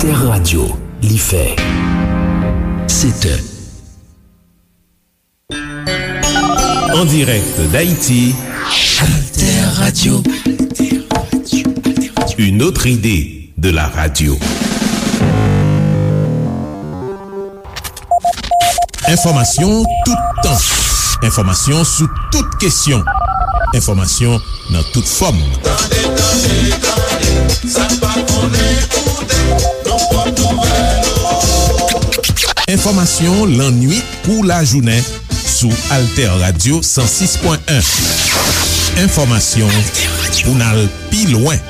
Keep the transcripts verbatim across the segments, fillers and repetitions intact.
Alter Radio, li fè sèt è. En direct d'Haïti, Alter Radio. Une autre idée de la radio. Enfòmasyon toutan. Enfòmasyon sou tout kesyon. Enfòmasyon nan tout fòm. Tande, tande, tande, sa n pa konnen koute, nan pòt nouvèl ou. Enfòmasyon lannuit kou lajounen sou Alter Radio san sis pwen en. Enfòmasyon pou n al pi lwen.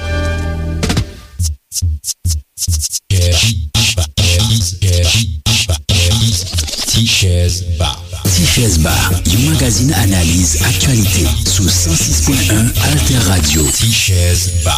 Tichèz Ba. Tichèz Ba, yon magazin analiz aktyalite sou san sis pwen en Alter Radio. Tichèz Ba.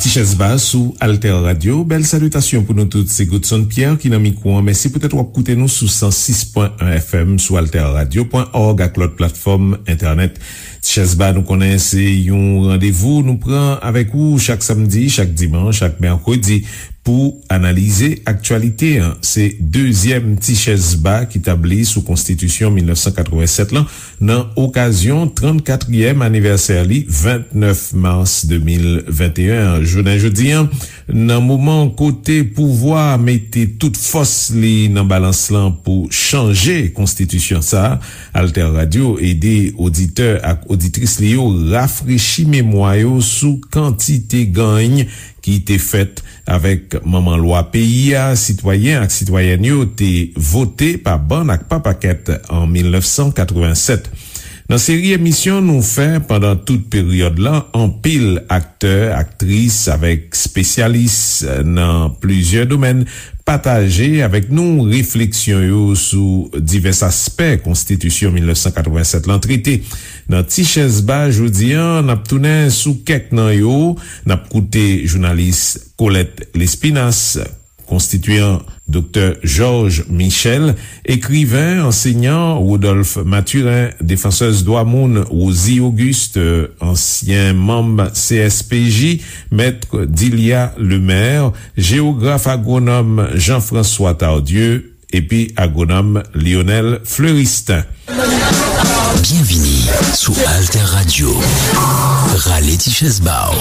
Tichèz Ba sou Alter Radio. Bèl salitasyon pou nou tout. Se Godson Pierre ki nan mikwo an. Mèsi poutèt w ap koute nou sou san sis pwen en F M, sou alterradio pwen org ak lòt platfòm entènèt. Tichèz Ba, nou konnen se yon randevou nou pran avèk ou chak samdi, chak dimanch, chak mèkredi pou analize aktyalite an. Se dezyèm Tichèz Ba ki tabli sou Konstitisyon mil nèf san katrevennsèt lan nan okazyon trannkatriyèm anivèsè li, vennèf mas de mil venteyen an. Jounen jodi an, nan moman kote pouvwa a mete tout fòs li nan balans lan pou chanje konstitisyon sa a, Alter Radio ede oditè ak oditris li yo rafrechi memwa yo sou kantite ganny ki te fèt avèk manman lwa peyi a, sitwayen ak sitwayèn yo te vote pa bann ak pa pakèt an mil nèf san katrevennsèt. Nan seri emisyon nou fè pandan tout peryòd lan, anpil aktè, aktris avèk espesyalis nan plizyè domèn pataje avèk nou refleksyon yo sou divès aspè Konstitisyon mil nèf san katrevennsèt lan trete. Nan Tichèz Ba jodi an, n ap tounen sou kèk nan yo. N ap koute jounalis Colette Lespinasse, konstitiyan Doktè Georges Michel, ekriven, ansenyan Rodolphe Mathurin, defansèz dwa moun Rosie Auguste, ansyen manm C S P J, mèt Dilia Lemaire, jewograf agwonòm Jean-François Tardieu, epi agwonòm Lionel Fleuristin. Byenvini sou Alter Radio. Rale ti chèz ba w.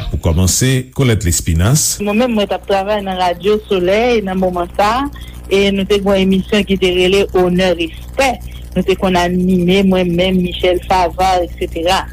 Pou kòmanse, Colette Lespinasse. Mwen menm, mwen t ap travay nan Radyo Solèy nan moman sa a, e nou te gen yon emisyon ki te rele Onè Respè. Nou te konn anime, mwen menm, Michel Favard, etsetera.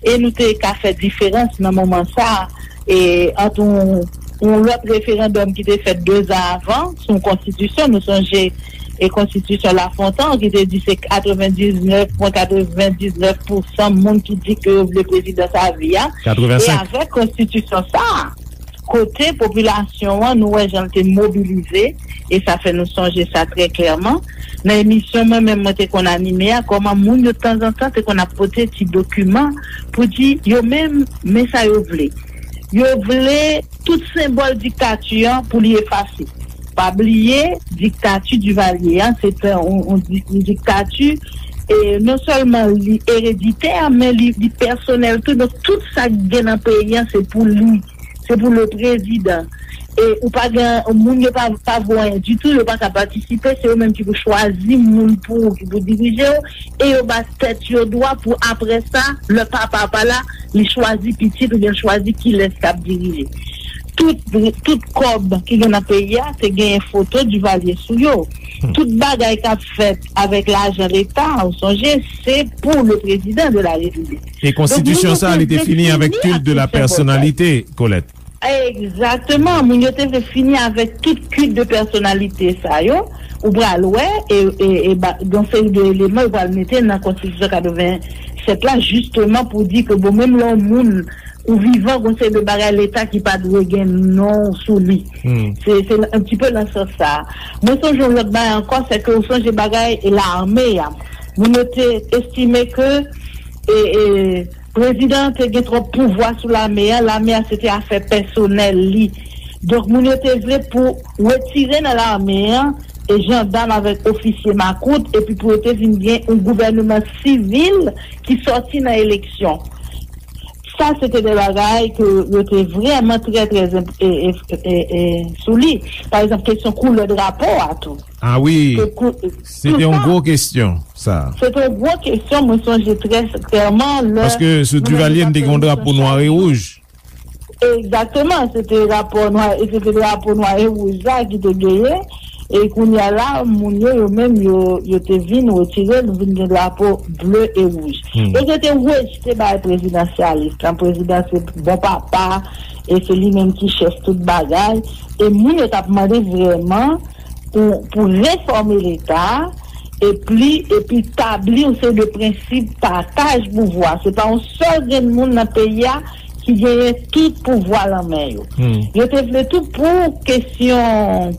E nou te ka fè diferans nan moman sa a, e ant yon, yon lòt referandòm ki te fèt de zan avan, sou yon konstitisyon, nou sonje, e konstitisyon Lafontan, ki te di se katrevendiznèf pwen katrevendiznèf pousan moun ki di ke yo vle prezidans avi a. E avèk konstitisyon sa a, kote popilasyon an, nou wè jan l te mobilize, e sa fè nou sonje sa trè klèman. Nan emisyon mwen menm mwen te konn anime a, kòman moun yo tanzantan te konn ap pote ti dokiman pou di yo menm, men sa yo vle. Yo vle tout senbòl diktati an pou li efase. Pa bliye, diktati Divalye an, se te yon, yon di-, yon diktati, e non sèlman li ereditè, men li, li pèsonèl tou. Donk, tout sa k gen nan peyi an, se pou li. Se pou le prezidan. E ou pa gen, moun yo pa, pa vo anyen ditou, yo pa ka patisipe, se yo menm ki pou chwazi moun pou ou, ki pou dirije w, e yo ba tèt yo dwa pou apre sa, lè papa pa la, li chwazi pitit oubyen l chwazi kilès k ap dirije. Tout, tout kòb ki gen nan peyi a, te genyen foto Divalye sou yo. Tout bagay k ap fèt avèk lajan leta, ou sonje, se pou le président de la République. E konstitisyon sa a, li te fini avèk culte de la personnalité, Colette. Egzakteman, moun yo te vle fini avèk tout culte de personnalité sa yo. Ou pral wè, e, e, e ba, gen seri de eleman yo pral mete nan konstitisyon katrevennsèt la, jisteman pou di ke, bon, menm lè yon moun ou vivan, gon seri de bagay leta ki pa dwe gen non w sou li. Se, se yon ti pe nan sans sa a. Mwen sonje yon lòt bagay ankò, se ke ou sonje bagay lame a. Moun yo te estime ke, e, e, prezidan an te gen twòp pouvwa sou lame a, lame a se te afè pèsonèl li. Donk, moun yo te vle pou retire nan lame a, e jandam avèk ofisye makout, epi pou yo te vin gen yon gouvèneman sivil ki sòti nan eleksyon. Sa se te de bagay ke yo te vrèman trè, trè enp- e, e, e, e, sou li. Pa egzanp, kesyon koulè drapo a tou. Ah wi, se te yon gwo kesyon sa. Se te yon gwo kesyon, mwen sonje trè klèman lè. Paske sou Duvalier n te gen yon drapo nwa e wouj. Egzakteman, se te rapò nwa, e se te drapo nwa e wouj la ki te genyen. E kounye a la, moun yo, yo menm, yo, yo te vin retire, nou vin gen drapo ble e wouj. Donk, yo te rejte bagay prezidansyalis lan. Prezidan se bon papa, e se li menm ki chèf tout bagay. E moun yo t ap mande vrèman pou, pou refòme Leta, epi, epi tabli yon seri de prensip pataj pouvwa. Se pa yon sèl grenn moun nan peyi a ki genyen tout pouvwa lan men yo. Yo te vle tou pou kesyon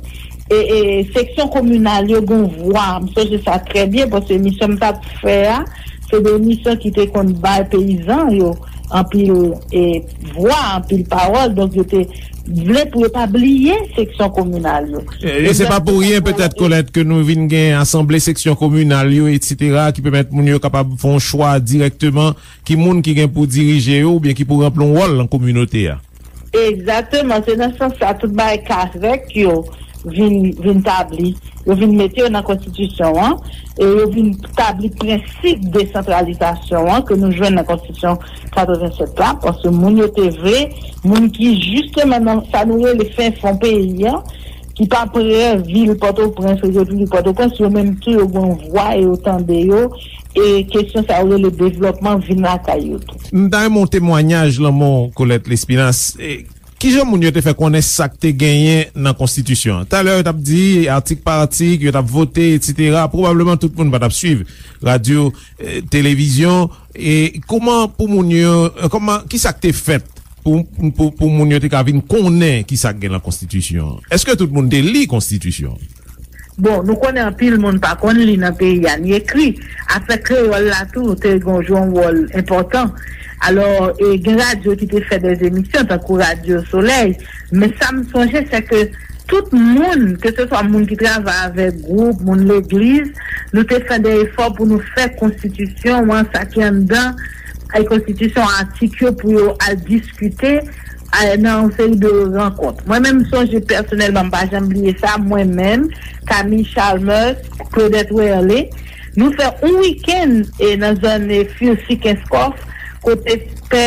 e, e, seksyon kominal yo gen vwa. M sonje sa trè byen, paske emisyon m t ap fè a, se de emisyon ki te konn bay peyizan yo anpil e, vwa, anpil pawòl. Donk, yo te vle pou yo pa bliye seksyon kominal yo. E, e se pa pou ryen, petèt, Colette, ke nou vin gen asanble seksyon kominal yo, etsetera, ki pèmèt moun yo kapab fè yon chwa dirèkteman ki moun ki gen pou dirije yo oubyen ki pou ranpli yon wòl nan kominote a. Egzakteman, se nan sans sa tout bagay kazèk yo vin, vin tabli. Yo vin mete yo nan konstitisyon an, e yo vin tabli prensip desantralizasyon an ke nou jwenn nan konstitisyon katrevennsèt la, paske moun yo te vle, moun ki jisteman nan sa nou rele fen fon peyi an, ki pa prè vil Pòtoprens, Repiblik Pòtoprens, yo menm tou yo gen yon vwa e yo tande yo, e kesyon sa yo rele devlòpman vin lakay yo tou. M ta renmen yon temwayaj lanmò Colette Lespinasse. E, kijan moun yo te fè konnen sa k te genyen nan konstitisyon an? Talè yo t ap di atik pa atik, yo t ap vote, etsetera. Pwobableman tout moun pa t ap swiv radyo, e, televizyon. E kòman pou moun yo, e, kòman, kisa k te fèt pou, pou, pou moun yo te ka vin konnen kisa k gen nan konstitisyon an? Èske tout moun te li konstitisyon an? Bon, nou konnen anpil moun pa konn li nan peyi a, ni ekri. Afè kreyòl la tou te gen jwe yon wòl enpòtan. Alò, e, gen radyo ki te fè de emisyon, tankou Radyo Solèy. Men sa m sonje, se ke tout moun, keseswa moun ki travay avèk gwoup, moun legliz, nou te fè de efò pou nou fè konstitisyon an, sa ki anndan, ay konstitisyon, atik yo pou yo al diskite, a, nan yon seri de rankont. Mwen menm, m sonje pèsonèlman, m pa janm bliye sa, mwen menm, Camille Chalmers, Claudette Werlé, nou fè yon wikenn, e, nan zòn, e, Furcy Kenskòf, kote pè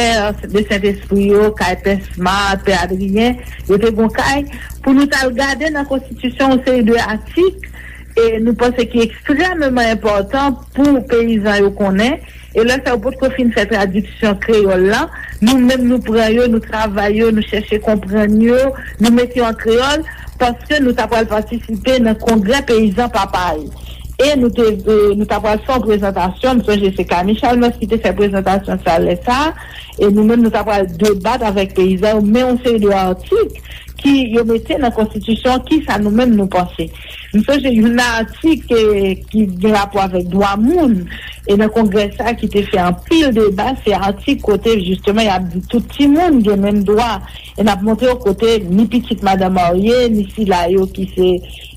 de Sentespri yo, kay pè Smart, pè Adrien, yo te gon kay, pou nou t al gade nan konstitisyon yon seri de atik, e nou panse ki ekstrèmeman enpòtan pou peyizan yo konnen, e lè sa yo potko fin fè tradiksyon kreyòl la, nou menm nou pran yo, nou travay yo, nou chèche konprann yo, nou mete yo an kreyòl, paske nou ta pral patisipe nan kongrè peyizan Papay. E nou te, e, nou ta pral fè yon prezantasyon, m sonje se Camille Chalmers ki te fè prezantasyon sa lè sa, e nou menm nou ta pral debat avèk peyizan yo, men yon seri de atik ki yo mete nan konstitisyon, kisa nou menm nou panse. M sonje youn nan atik, e, ki gen rapò avèk dwa moun, e nan kongrè sa ki te fè anpil deba, se atik kote jisteman y ap di tout timoun gen menm dwa, e n ap montre yo kote ni pitit madan marye, ni sila yo ki se,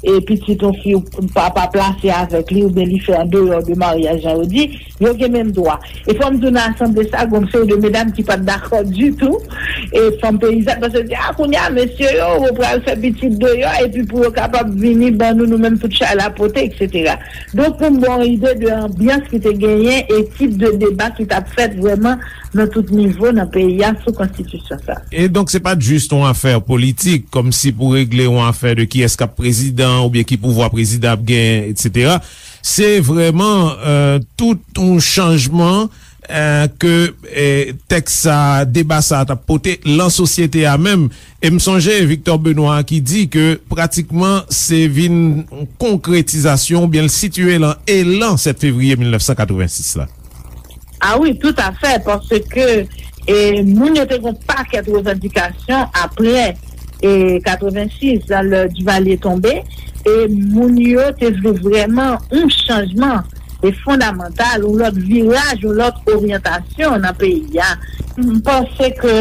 e, pitit yon fi papa plase avèk li, oubyen li fè andeyò de maryaj, jan yo di, yo gen menm dwa. E fò m di w nan asanble sa, gon seri de medam ki pa t dakò ditou, e fanm peyizàn, paske yo di, a, kounye a, mesye yo, yo pral fè pitit deyò, epi pou yo kapab vini ban nou, nou menm tout chay la pote, etsetera. Donk, pou m ba w yon ide de anbyans ki te genyen e tip de deba ki t ap fèt vrèman nan tout nivo nan peyi a sou konstitisyon sa. E donk, se pa t jis yon afè politik, kòmsi pou regle yon afè de kiyès k ap prezidan oubyen ki pouvwa prezidan ap genyen, etsetera. Se vrèman, e, tout yon chanjman, e, ke, e, tèks sa, deba sa t ap pote lan sosyete a menm. E m sonje Victor Benoît ki di ke pratikman se vin konkretizasyon oubyen l sitiye lan elan sèt fevriye mil nèf san katrevensis la. A wi, toutafè, paske, e, moun yo te gen yon pakèt revandikasyon apre, e, katrevensis, lè Duvalier tonbe, e moun yo te vle vrèman yon chanjman, e, fondamantal, yon lòt viraj, yon lòt oryantasyon nan peyi a. M panse ke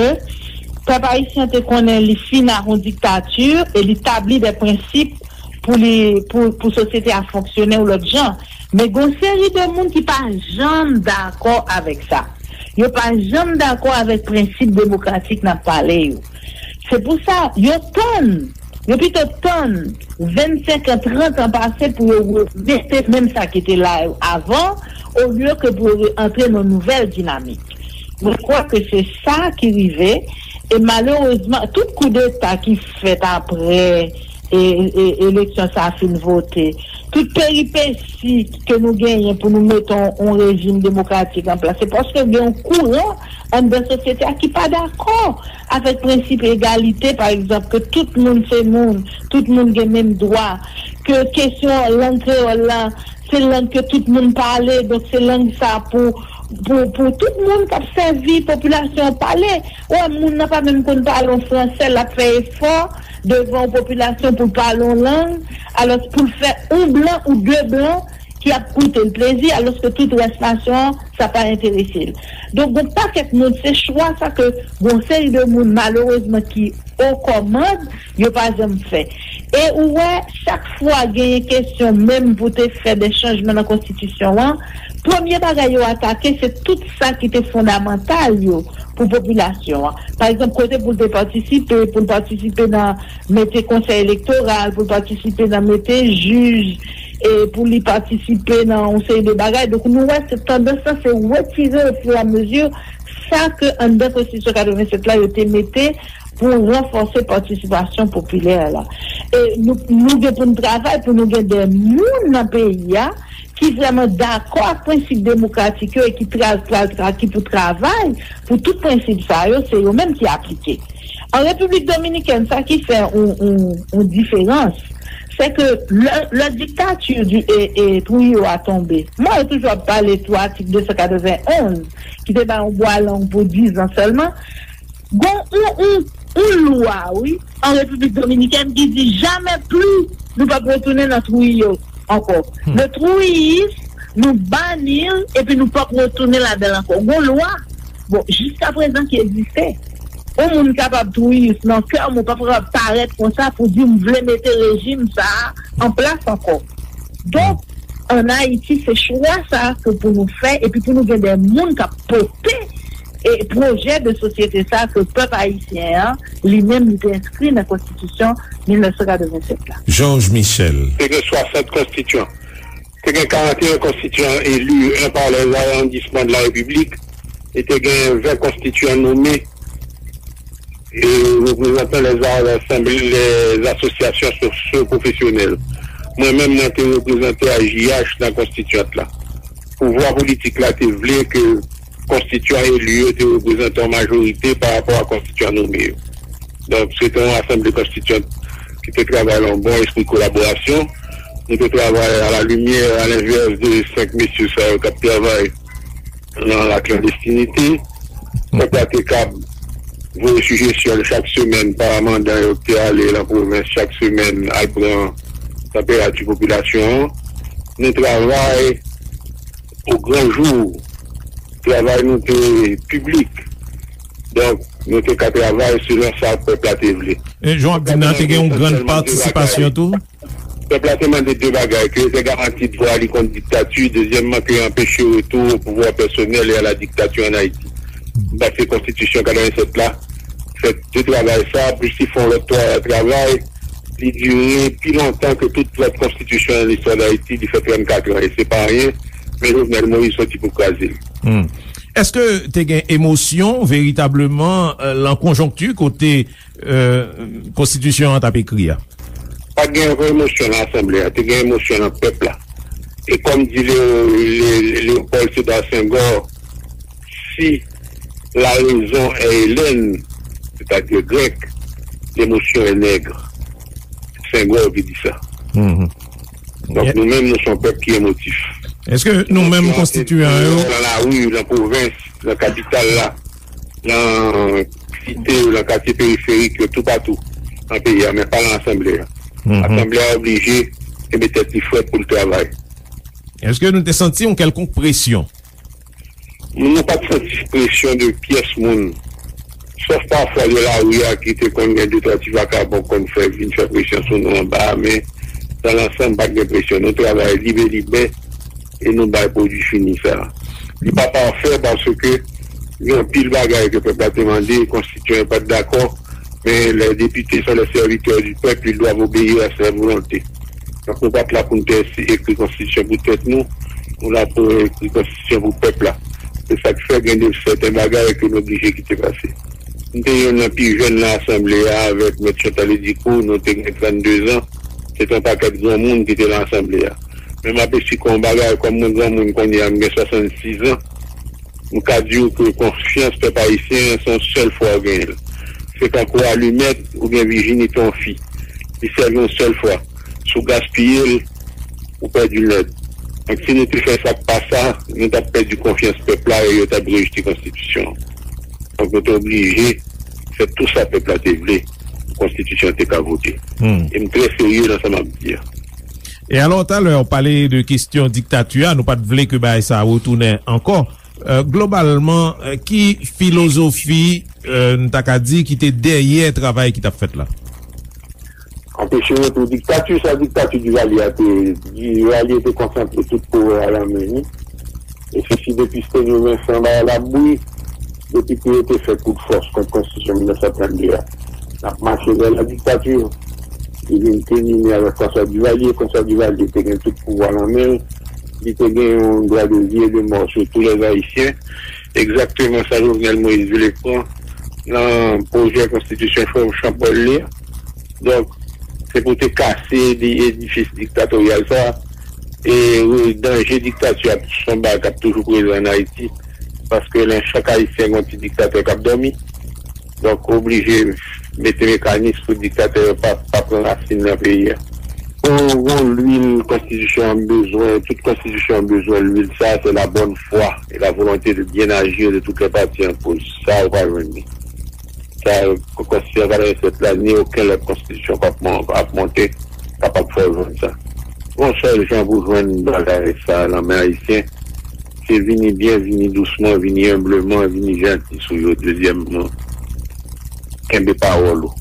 pèp ayisyen te konnen li fin ak yon diktati e li tabli de prensip pou li, pou, pou sosyete a fonksyone yon lòt jan. Men gen yon seri de moun ki pa janm dakò avèk sa. Yo pa janm dakò avèk prensip demokratik n ap pale yo. Se pou sa, yo tann, yo pito tann vennsenk an, trant an pase pou yo remete menm sa ki te la avan, olye ke pou yo antre nan nouvèl dinamik. Mwen kwè ke se sa ki rive, e malerezman, tout koudeta ki fèt apre e, e, eleksyon sa a fin vote, tout peripesi ke nou genyen pou nou mete yon, yon rejim demokratik an plas, se paske gen yon kouran anndan sosyete a ki pa dakò avèk prensip egalite, pa egzanp, ke tout moun se moun, tout moun gen menm dwa, ke kesyon lang kreyòl la, se lang ke tout moun pale, donk se lang sa pou, pou, pou tout moun k ap sèvi popilasyon an pale. Ou wè, moun nan pa menm konn pale yon fransè, l ap fè efò devan yon popilasyon pou l pale yon lang, alòs pou l fè yon blan ou de blan ki ap koute l plezi, alòske tout rès nasyon an, sa pa enterese l. Donk, gon pakèt moun, se chwa sa ke gon seri de moun, malerezman, ki o kòmand, yo pa janm fè. E ou wè, chak fwa genyen kesyon menm pou te fè de chanjman nan konstitisyon an, premye bagay yo atake, se tout sa ki te fondamantal yo pou popilasyon an. Pa egzanp, kote pou l te patisipe, pou l patisipe nan mete konsèy elektoral, pou l patisipe nan mete jij, e pou li patisipe nan yon seri de bagay. Donk, nou wè se tandans lan, se retire ofiramezu sa ke anndan konstitisyon katrevennsèt la, yo te mete pou ranfòse patisipasyon popilè la. E nou, nou gen pou n travay pou nou gen de moun nan peyi a ki vrèman dakò ak prensip demokratik yo e ki tra-, tra-, tra-, ki pou travay pou tout prensip sa yo, se yo menm ki aplike. An Repiblik Dominikèn, sa ki fè yon, yon, yon diferans, se ke lè, lè diktati di, e, e, Trujillo a tonbe, mwen yo toujou ap pale tou atik de san katrevenn onz, ki te bay yon bwa long pou diz an sèlman, gon yon, yon, yon lwa, wi, an Repiblik Dominikèn ki di jamè pli nou p ap retounen nan Trujillo ankò. Le Trujillisme, nou bani l, epi nou p ap retounen ladan l ankò. Gon lwa, bon, jiskaprezan ki egziste. Yon moun kapab Trujillis nan kè, men w pa kapab parèt konsa pou di m vle mete rejim sa a an plas ankò. Donk, ann Ayiti, se chwa sa a ke pou nou fè, epi pou nou gen de moun k ap pote e pwojè de sosyete sa a ke pèp ayisyen an, li menm, li te enskri nan konstitisyon mil nèf san katrevennsèt la. Georges Michel. Te gen swasant konstityan. Te gen karannteyen konstityan eli, un par les arrondissements de la République, e te gen ven konstityan nome e reprezantan les a-, les asosyasyon sosyo-pwofesyonèl. Mwen menm, mwen te reprezante A J H nan konstityant la. Pouvwa politik la te vle ke konstityan eli yo te reprezante yon majorite pa rapò a konstityan nome yo. Donk, se te yon asanble konstityant ki te travay nan yon bon espri kolaborasyon. Nou te travay a la limyè, a lenvès de senk mesye sa yo k ap travay nan laklandestinite. Pèp la te kab voye sijesyon l chak semèn pa mandan yo ki te ale nan pwovens chak semèn al pran tanperati popilasyon an. Nou travay o gran jou. Travay nou te piblik. Donk, nou te ka travay selon sa pèp la te vle. E jan w ap di m nan, te gen yon grann patisipasyon tou? Pèp la te mande de bagay, ke yo te garanti dwa li kont diktati, dezyèmman, ke yo anpeche retou o pouvwa pèsonèl e a la diktature ann Ayiti. M panse konstitisyon katrevennsèt la fè de travay sa, plis li fè yon lòt twa-, travay, li dire pi lontan ke tout lòt konstitisyon nan listwa d Ayiti, li fè trannkat an, e se pa anyen, men Jovenel Moïse soti pou kraze l. Hmm. Èske te gen emosyon veritableman, euh, lan konjonkti kote euh, konstitisyon an t ap ekri a? Pa t gen ankò emosyon nan asanble a, te gen emosyon nan pèp la. E kòm di Leo-, Le-, Léopold Sédar Senghor, si la raison est hellène, c'est-à-dire grecque, l'émotion est nègre. Senghor ki di sa. Mhm. Donk, nou menm, nou se yon pèp ki emotif. Èske nou menm konstityan yo? Nan lari, nan pwovens, nan kapital la, nan site yo, nan katye periferik yo, toupatou nan peyi a, men pa nan asanble a. Mhm. Asanble a oblije kenbe tèt li frèt pou l travay. Èske nou te santi yon kèlkonk presyon? Nou pa t santi presyon de pyès moun. Sòf pafwa de lari a ki te konn gen de twa ti vakabon k konn fè, vin fè presyon sou nou anba a, men dan lansanm, pa t gen presyon. Nou travay lib e libè e nou bay pwodui fini sa a. Li pa pafè paske Gen anpil bagay ke pèp la te mande, konstityan yo pa t dakò, men les députés sont les serviteurs du peuple, ils doivent obéir à sa volonté. Donk, nou pa t la pou n te ekri konstitisyon pou tèt nou, nou la pou ekri konstitisyon pou pèp la. Se sa k fè gen de sèten bagay ke nou oblije kite pase. M te youn nan pi jèn nan asanble a avèk Mèt Chantal Edicourt, nou te gen trannde zan. Se te yon pakèt granmoun ki te nan asanble a. Men m apesyè yon bagay, kòm mwen granmoun kounye a, m gen swasannsis zan, m ka di w ke konfyans pèp ayisyen an, se yon sèl fwa w genyen l. Se tankou alimèt oubyen vijinite yon fi. Li sèvi yon sèl fwa. Si w gaspiye l, ou pèdi l nèt. Donk, si nou te fè sa k pa sa, nou t ap pèdi konfyans pèp la e yo t ap rejte konstitisyon an. Donk, nou te oblije fè tou sa pèp la te vle pou konstitisyon an te ka vote. E m trè serye nan sa m ap di a. E alò, talè, w pale de kesyon diktati a, nou pa t vle ke bagay sa a retounen ankò. Euh, globalman, euh, ki filozofi, euh, n ta ka di, ki te dèyè travay ki t ap fèt la? Anpeche retou diktati, sa diktati Duvalier a te, Duvalier te konsantre tout pouvwa a nan men li. E se si depi Stenyo Vensan bay labri, depi ke yo te fè kout fòs kont konstitisyon mil nèf san trannde a, n ap mache vè la diktati. Li vin kilmine avèk François Duvalier. François Duvalier te gen tout pouvwa nan men l. Li te gen yon dwa de vi e de mò sou tou lè Ayisyen. Egzakteman sa Jovenel Moïse vle pran nan pwojè konstitisyon Chanpòl li a. Donk, se pou te kase di edifis diktatoryal sa a. E, e danje diktati a, se yon bagay k ap toujou prezan ann Ayiti, paske nan chak Ayisyen gen yon ti diktatè k ap dòmi. Donk, oblije mete mekanis pou diktatè yo pa, pa pran rasin nan peyi a. Bon, bon, lwil konstitisyon an bezwen, tout konstitisyon an bezwen lwil sa, c'est la bonne foi et la volonté de bien agir de toutes les parties en cause. Sa, ou pa jwenn li. Sa, konstitisyon katrevennsèt la, ni okenn lòt konstitisyon k ap mon-, ap monte, kapab fè w jwenn sa. Yon sèl jan pou jwenn bagay sa nan men Ayisyen, se vini byen, vini dousman, vini enbleman, vini janti sou yo. Dezyèmman, kenbe pawòl ou.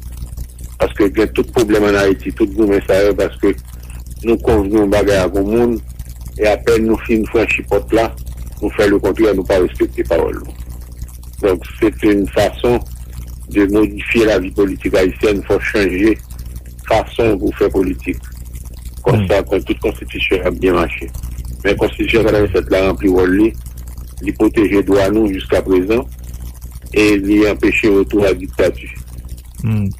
Paske gen tout pwoblèm ann Ayiti, tout goumen sa yo, paske nou konvni yon bagay ak yon moun, e apèn nou fin franchi pòt la, nou fè lekontrè, nou pa respekte pawòl nou. Donk, se te yon fason de modifye lavi politik ayisyèn, fò chanje fason pou fè politik. Konsa, kon tout konstitisyon ap byen mache. Men konstitisyon katrevennsèt la ranpli wòl li, li pwoteje dwa nou jiska prezan, e li anpeche retou a diktati. Hmm.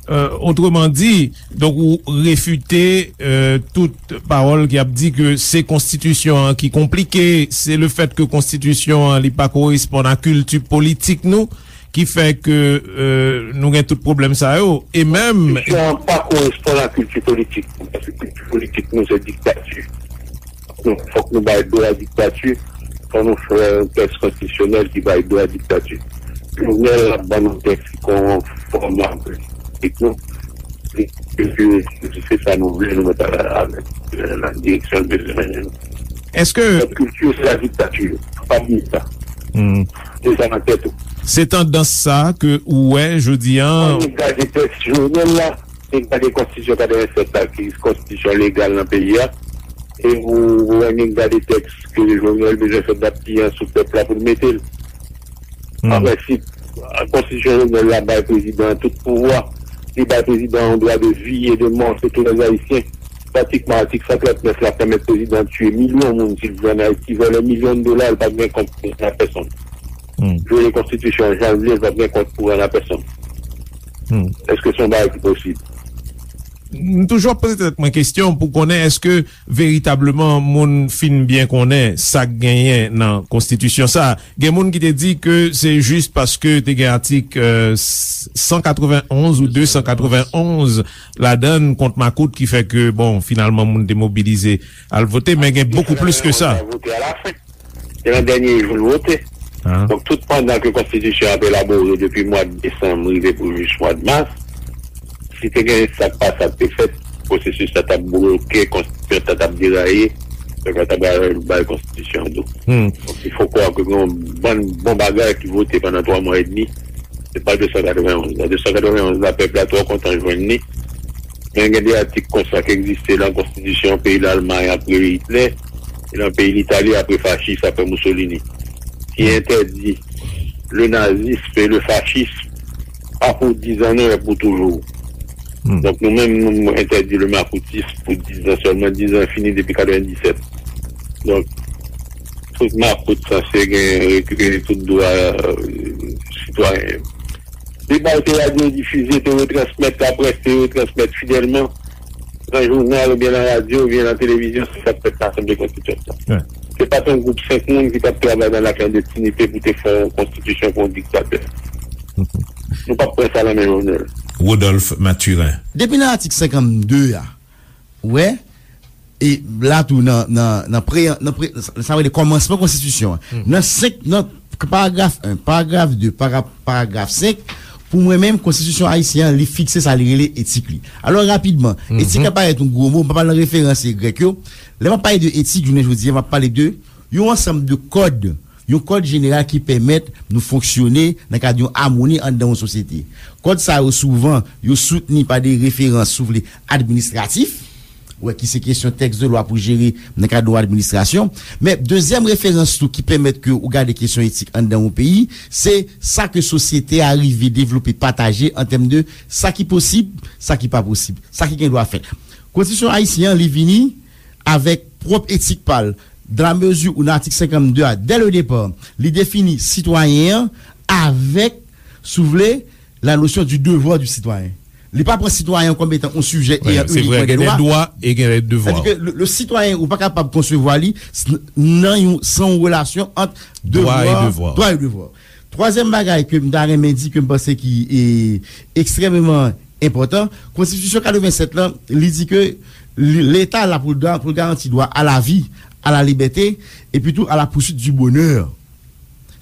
Euh, autrement dit, donk ou refite, euh, tout pawòl ki ap di ke se konstitisyon an ki konplike, se le fèt ke konstitisyon an li pa koresponn a kilti politik nou, ki fè ke, euh, nou gen tout pwoblèm sa yo, e menm... Konstitisyon an pa koresponn a kilti politik nou, paske kilti politik nou se diktati. Fòk nou, fòk nou bay do a diktati, fòk nou fè yon tèks konstitisyonèl ki bay do a diktati. Jovenel ap ban nou tèks ki konfòm avèk nou. E ke se sa nou vle, nou mèt al avèk, euh, nan direksyon l bezwen mennen nou. Èske... Kilti se la diktati, pa bliye sa. Hmm. Se sa nan tèt ou. Se tandans sa ke ou wè jodi an. Ann gade tèks Jovenel la, e gade konstitisyon katrevennsèt la, ki konstitisyon legal nan peyi a, e ou, ou annik gade tèks ke Jovenel bezwen fè dat piyan sou pèp la pou l mete l. An prensip, konstitisyon Jovenel la bay prezidan an tout pouvwa. Li bay prezidan an yon dwa de vi e de mò sou tou lè Ayisyen. Pratikman, atik san trant nèf la pèmèt prezidan an tiye milyon moun si l vle ann Ayiti, vòlè milyon dola, l pa t gen kont pou pèsonn. Vyole konstitisyon an jan l vle, l pa t gen kont pou rann a pèsonn. Èske se yon bagay ki posib? M toujou ap poze tèt mwen kesyon pou konnen èske veritableman moun fin byen konnen sa k genyen nan konstitisyon sa. Gen moun ki te di ke se jis paske te gen atik, euh, san katrevenn onz ou de san katrevenn onz ladan l kont makout ki fè ke, bon, finalman moun te mobilize al vote, men gen bokou plis ke sa. Vote alafen. Se nan dènye jou l vote. Donk, tout pandan ke konstitisyon an ap elabore depi mwa desanm rive pou jis mwa mas, si te gen sa k pa sa k te fèt, pwosesis la t ap bloke, konstitisyon an t ap deraye, pèp la t ap bay, bay konstitisyon an do. Donk, il faut croire ke gen yon bann bon bagay ki vote pandan twa mwa edmi, se pa de san katrevenn onz la. De san katrevenn onz la, pèp la twò kontan jwenn li. Men gen de atik konsa ki egziste nan konstitisyon peyi Lalmay apre Itlè, e nan peyi Litali apre fachis, apre Mussolini, ki entèdi le nazisme et le fascisme, pas pour dix ans, non, mais pour toujours. Donk, nou menm, nou entèdi le makoutis pou diz an sèlman. Diz an fini depi katrevendisèt. Donk, tout makout sanse gen rekipere tout dwa euh, sitwayen yo. Deba yo te radyo difize, te retransmèt, laprès te retransmèt fidèlman nan jounal oubyen nan radyo oubyen nan televizyon, se sa k fèt nan Asanble Konstitiyant lan. Se pa t yon gwoup senk moun ki t ap travay nan laklandestinite pou te fè yon konstitisyon pou yon diktatè. Nou p ap pran sa nan men Jovenel. Rodolphe Mathurin. Depi nan atik senkannde a, ou wè, e la tou nan, nan, nan pre, nan pre, sa rele kòmansman konstitisyon an. Nan senk, nan paragraf en, paragraf de, para, paragraf senk, pou mwen menm, konstitisyon ayisyen an, li fikse sa li rele etik li. Alò, rapidman, etik la parèt yon gwo mo, m pa pral nan referans grèk yo. Lè m ap pale de etik, jounen jodi a, m ap pale de yon ansanm de kòd, yon kòd jeneral ki pèmèt nou fonksyone nan kad yon amoni anndan yon sosyete. Kòd sa yo, souvan, yo soutni pa de referans, si w vle, administratif, wè, ki se kesyon tèks de lwa pou jere nan kad yon administrasyon. Men, dezyèm referans tou ki pèmèt ke ou gade kesyon etik anndan yon peyi, se sa ke sosyete a rive devlope, pataje an tèm de sa ki posib, sa ki pa posib, sa ki gen dwa fèt. Konstitisyon ayisyen an, li vini avèk pwòp etik pa l, dans la mesure où nan atik senkannde a, dès le départ, li defini sitwayen an avèk, si w vle, la notion du devoir du citoyen. Li pa pran sitwayen kòm etan yon sijè e yon uniquement des droits. Gen dwa e gen devwa. Sètadi ke le, le sitwayen, ou pa kapab konsevwa li s- nan yon, san yon relasyon ant dwa e devwa. Dwa e devwa. Twazyèm bagay ke m ta renmen di, ke m panse ki e, ekstrèmeman enpòtan, konstitisyon katrevensèt lan, li di ke li- Leta la pou l ga- pou l garanti dwa a la vi, a la libète, epi tou a la poursuite du bonheur.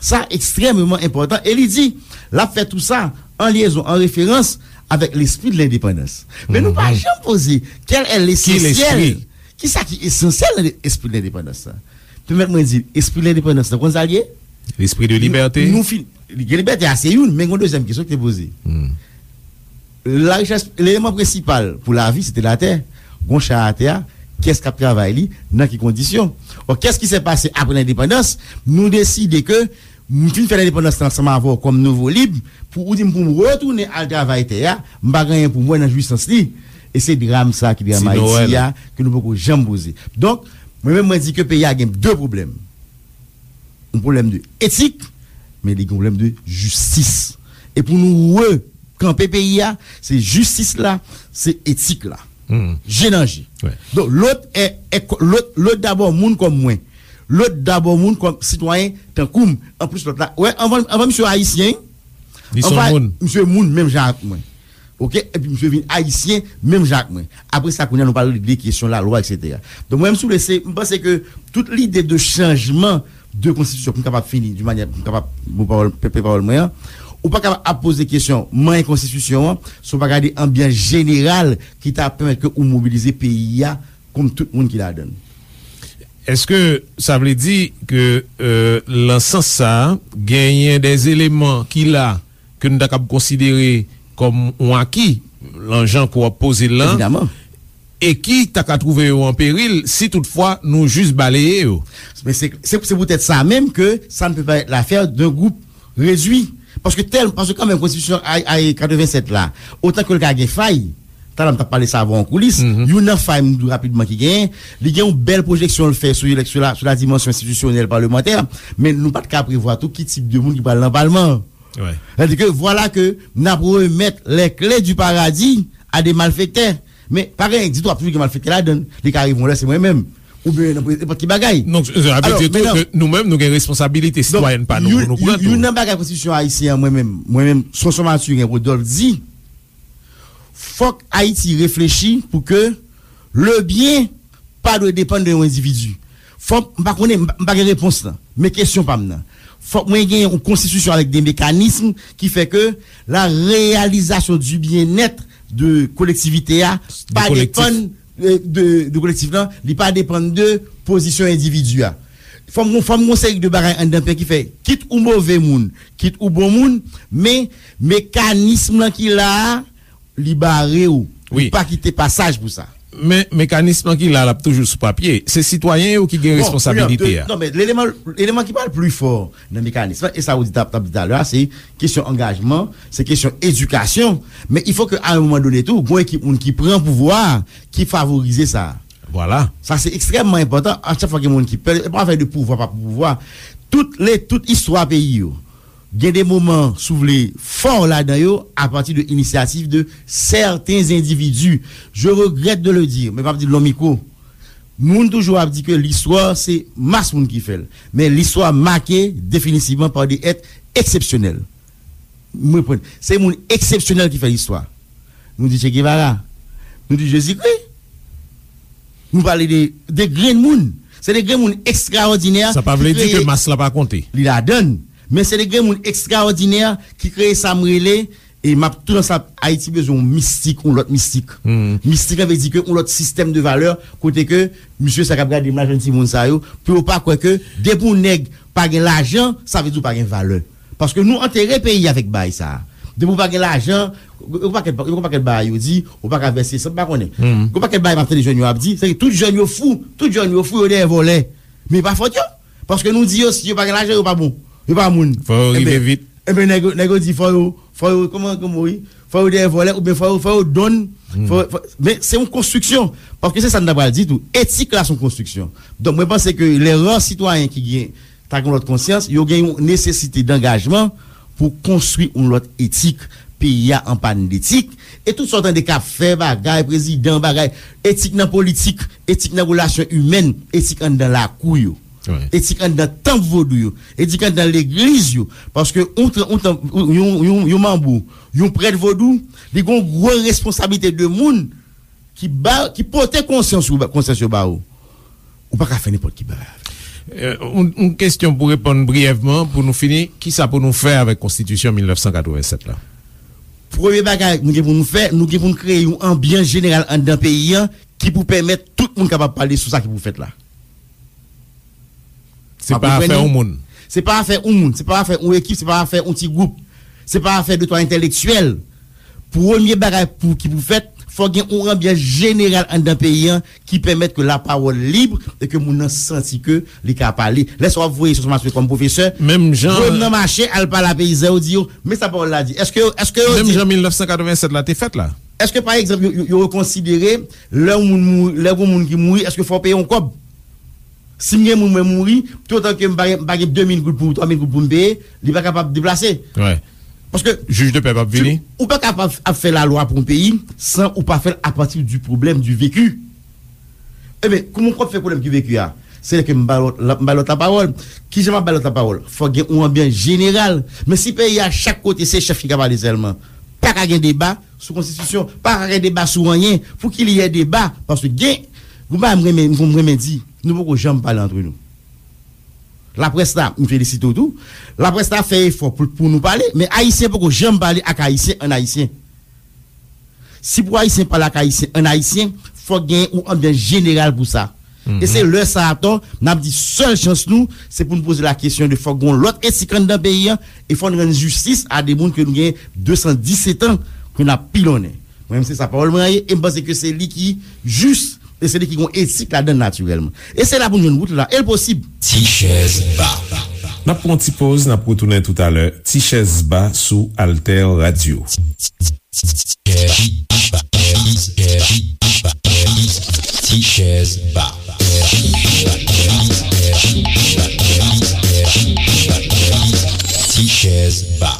Sa ekstrèmeman enpòtan. E li di, l ap fè tou sa an lyezon, an referans avèk lespri de lendepandans. Men nou pa janm poze, quel est l'essentiel? Ki sa ki esansyèl nan espri de lendepandans la? Pèmèt mwen di, espri de lendepandans la, konn sa l ye? Lespri de libète. Nou fin, gen libète a se youn, men gen yon dezyèm kesyon ki te poze. La richès, eleman prensipal pou lavi, se te latè. Gon chay atè a, kiyès k ap travay li, nan ki kondisyon? Bon, qu'est-ce qui s'est passé après l'indépendance? Nou deside ke m fin fè lendepandans lan ansanm avè w kòm nouvo lib, pou ou di m pou m retounen al travay tè a, m pa gen anyen pou m wè nan jwisans li. E se dram sa ki dram Ayiti a, ke nou poko janm poze. Donk, mwen menm mwen di ke peyi a gen de pwoblèm. Yon pwoblèm de etik, men li gen yon pwoblèm de jistis. E pou nou rekanpe peyi a, se jistis la, se etik la. Je nan je. Donk, lòt è, è, lòt, lòt dabò moun kòm mwen. Lòt dabò moun kòm sitwayen tankou m. Anplis lòt la, wè, anvan, anvan misye ayisyen, anvan misye moun menm jan ak mwen. Oke? Epi misye vin ayisyen menm jan ak mwen. Apre sa, kounye a, nou pral regle kesyon lalwa, etsetera. Donk, mwen menm, si w vle, se, m panse ke tout lide de chanjman de konstitisyon, pou m kapab fini, di manyè, pou m kapab, bon pawòl, pèpè pawòl mwen an, ou pa kapab ap poze kesyon manyen konstitisyon an, si w pa gade anbyans jeneral ki ta pèmèt ke ou mobilize peyi a kont tout moun ki ladan l. Èske sa vle di ke, euh, nan sans sa a, genyen de eleman ki la ke nou ta kab konsidere kòm yon aki, nan jan ke w ap poze l lan, e ki ta ka twouve yo an peril si toutfwa nou jis baleye yo? Men se, se, se poutèt sa menm ke ça ne peut pas être l'affaire d'un groupe réduit. Paske tèl, paske kanmenm konstitisyon ay, ay katrevensèt la, otan ke l ka gen fay, talè m t ap pale sa avè w an koulis, youn nan fay m di w rapidman ki genyen, li gen yon bèl pwojeksyon l fè sou elèk-, sou la, sou la dimansyon enstitisyonèl palmantè, men nou pa t ka prevwa tou ki tip de moun ki pral nan palman an. Sètadi ke vwala ke n ap remèt les clés du paradis à des malfaiteurs. Men pa gen ditou, ap toujou gen malfektè ladan l. Li ka rive yon lè se mwen menm. Oubyen nan nenpòt ki bagay. Donk, sa vle di tou ke nou menm, nou gen responsabilite sitwayèn pa nou pou nou pran tou. Youn nan bagay konstitisyon ayisyen an, mwen menm, mwen menm, Sonson Mathurin Rodolphe di, fòk Ayiti reflechi pou ke le bien pa dwe depann de yon endividi. Fòk, m pa konnen, m pa, m pa gen repons lan. Men kesyon pa m nan. Fòk mwen gen yon konstitisyon avèk de mekanism ki fè ke la réalisation du bien-être de kolektivite a pa depann, euh, de, de kolektif lan, li pa depann de pozisyon endividi a. Fò m, fò m gon seri de bagay anndan peyi ki fè, kit ou move moun, kit ou bon moun, men mekanism lan ki la a, li bare w. Li pa kite pasaj pou sa. Men mekanis lan ki la, l ap toujou sou papye. Se sitwayen yo ki gen responsabilite a. Non, men eleman, eleman ki pral pli fò nan mekanis lan, e sa ou di t ap, t ap di talè a, se kesyon angajman, se kesyon edikasyon. Men il faut que à un moment donné tou, gon ekip moun ki pran pouvwa a, ki favorize sa. Vwala. Sa se ekstrèmman enpòtan. A chak fwa gen moun ki pè, e pa afè de pouvwa, pa pouvwa. Tout le, tout istwa peyi yo, gen de moman, si w vle, fò ladan yo, apati de inisyativ de sèten endividi. Je regrèt de le dire, men m ap di l nan mikwo. Moun toujou ap di ke listwa se mas moun ki fè l. Men listwa make definitivman pa de èt eksepsyonèl. Mwen pran, se moun eksepsyonèl ki fè listwa. Nou di Che Guevara. Nou di Jezikri. Nou pale de, de grenn moun. Se de grenn moun ekstraòdinè. Sa pa vle di ke mas la pa konte. Li ladann. Men se de grenn moun ekstraòdinè ki kreye sa m rele, e m ap tou nan sa, Ayiti bezwen yon mistik, yon lòt mistik. Mistik la vle di ke yon lòt sistèm de valè, kote ke misye sa k ap gade m la, jwenn timoun sa yo, pou yo pa kwè ke depi yon nèg pa gen lajan, sa vle di w pa gen valè. Paske nou antere peyi avèk bagay sa a. Depi w pa gen lajan, yon pakèt, yon pakèt bagay yo di, ou pa ka vèse san, m pa konnen. Yon pakèt bagay m ap tande jèn yo ap di, se ke tout jèn yo fou, tout jèn yo fou, yo dèyè vòlè. Men e pa fòt yo. Paske nou di yo, si yo pa gen lajan, yo pa bon. Yo pa moun. Fò yo rive vit. Enben, nèg yo, nèg yo di, fò yo, fò yo, kòman, kòman, wi? Fò yo dèyè vòlè, oubyen fò yo, fò yo donn. Fò, fò, men se yon konstriksyon. Paske se sa n ta pral di tou. Etik la se yon konstriksyon. Donk, mwen panse ke lè rare sitwayen ki gen ta gen yon lòt konsyans, yo gen yon nesesite dangajman pou konstwi yon lòt etik. Peyi a an pàn detik. E tout sa w tande k ap fè bagay, prezidan, bagay, etik nan politik, etik nan relasyon imèn, etik anndan lakou yo, etik anndan tanp vodou yo, etik anndan legliz yo. Paske yon, yon, yon, yon, yon manbo, yon prèt vodou, li gen yon gwo responsablite de moun ki ba, ki pote konsyans ou, konsyans yo ba ou. Ou pa ka fè nenpòt ki bagay avè l. Yon, yon kesyon pou reponn briyèvman, pou nou fini, kisa pou nou fè avèk konstitisyon mil nèf san katrevennsèt la? Premye bagay nou gen pou nou fè, nou gen pou nou kreye yon anbyans jeneral anndan peyi a ki pou pèmèt tout moun kapab pale sou sa ki pou fèt la. Se pa afè yon moun. Se pa afè yon moun, se pa afè yon ekip, se pa afè yon ti gwoup. Se pa afè de twa entèlektyèl. Premye bagay pou, ki pou fèt, fò gen yon anbyans jeneral anndan peyi a ki pèmèt ke lapawòl lib e ke moun nan santi ke li ka pale. Lè sa w ap voye sou Maswe kòm pwofesè, menm jan voye m nan mache, al pale a peyizan yo, di yo, men sa pawòl la di. Èske, èske yo di, menm jan mil nèf san katrevennsèt la te fèt la. Èske, pa egzanp, yo, yo, yo konsidere lè yon moun mouri, lè yon moun ki mouri, èske fò w peye yon kòb? Si m gen moun mwen mouri, toutotan ke m pa gen, m pa gen de mil goud pou, twa mil goud pou m peye, li pa kapab deplase. Paske jij de pè p ap vini. Ou pa kapab ap fè lalwa pou yon peyi san ou pa fè l apati du problème, du vécu. Ebyen, kòman w ap fè pwoblèm ki veki a? Se lè ke m ba lòt, m ba lòt lapawòl. Kijan m ap ba lòt lapawòl? Fòk gen yon anbyans jeneral. Men si peyi a, chak kote se chèf ki ka pale sèlman, pa ka gen deba sou konstitisyon, pa ka gen deba sou anyen. Pou ki li yè deba? Paske gen, yon bagay m renmen, m renmen di, nou poko janm pale antre nou. Laprès la, m felisite w tou. Laprès la fè efò pou, pou nou pale, men Ayisyen poko janm pale ak Ayisyen an Ayisyen. Si pou Ayisyen pale ak Ayisyen an Ayisyen, fòk gen yon anbyans jeneral pou sa. E se lè sa atò, n ap di sèl chans nou, se pou n poze la kesyon de fòk gen yon lòt etik anndan peyi a, e fò n rann jistis a de moun ke nou gen de san disèt an ke n ap pilonnen. Mwen menm se sa pawòl mwen an ye, e m panse ke se li ki jis, e se li ki gen yon etik ladan l natirèlman. E se la pou n jwenn wout la, e l posib. Ti chèz ba. N ap pran yon ti poz, n ap retounen toutalè. Ti chèz ba sou Alter Radio. Ti chèz ba. Ti chèz ba.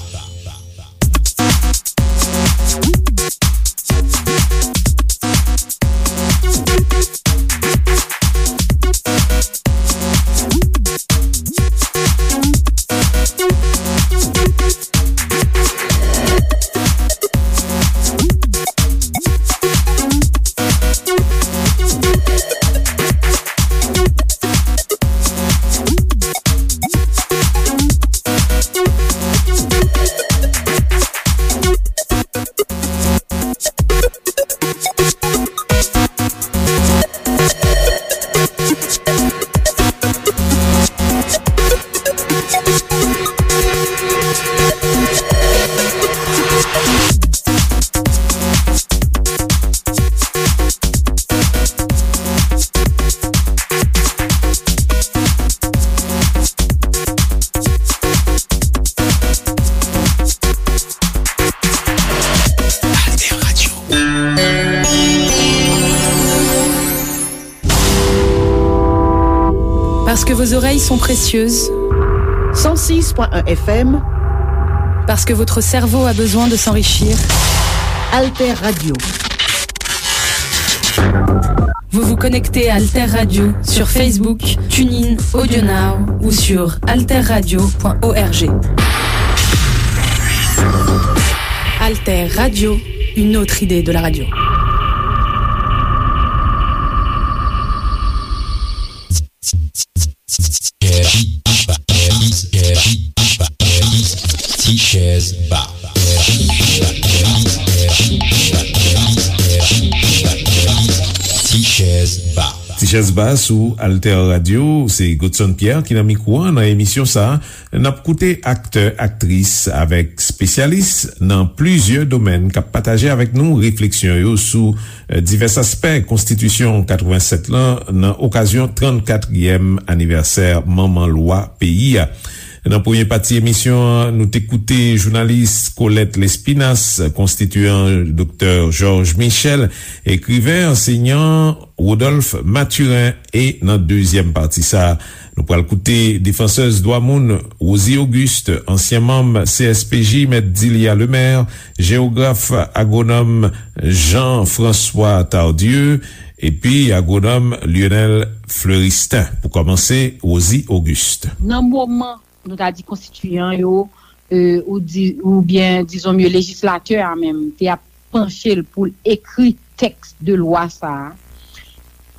Vos oreilles sont précieuses. Cent six point un F M. Parce que votre cerveau a besoin de s'enrichir. Alter Radio. Vous vous connectez à Alter Radio sur Facebook, TuneIn, AudioNow ou sur alterradio point org. Alter Radio, une autre idée de la radio. Ti chèz ba. Ti chèz ba. Ti chèz ba sou Alter Radio, se Godson Pierre ki nan mikwo a nan emisyon sa a. N ap koute aktè, aktris avèk espesyalis nan plizyè domèn k ap pataje avèk nou refleksyon yo sou, eh, divès aspè konstitisyon katrevennsèt lan nan okazyon trannkatriyèm anivèsè manman lwa peyi a. Nan premye pati emisyon an, nou te koute jounalis Colette Lespinasse, konstitiyan Doktè Georges Michel, ekriven, ansèyan Rodolphe Mathurin, e nan dezyèm pati sa a, nou pral koute defansèz dwa moun Rosie Auguste, ansyen manm C S P J, Mèt Dilia Lemaire, jewograf agwonòm Jean-François Tardieu, epi agwonòm Lionel Fleuristin. Pou kòmanse, Rosie Auguste. Nan moman, nou ta di konstitiyan yo, e, ou di, oubyen, dizon mye, lejislatè a menm, te ap panche l pou l ekri tèks de lwa sa a,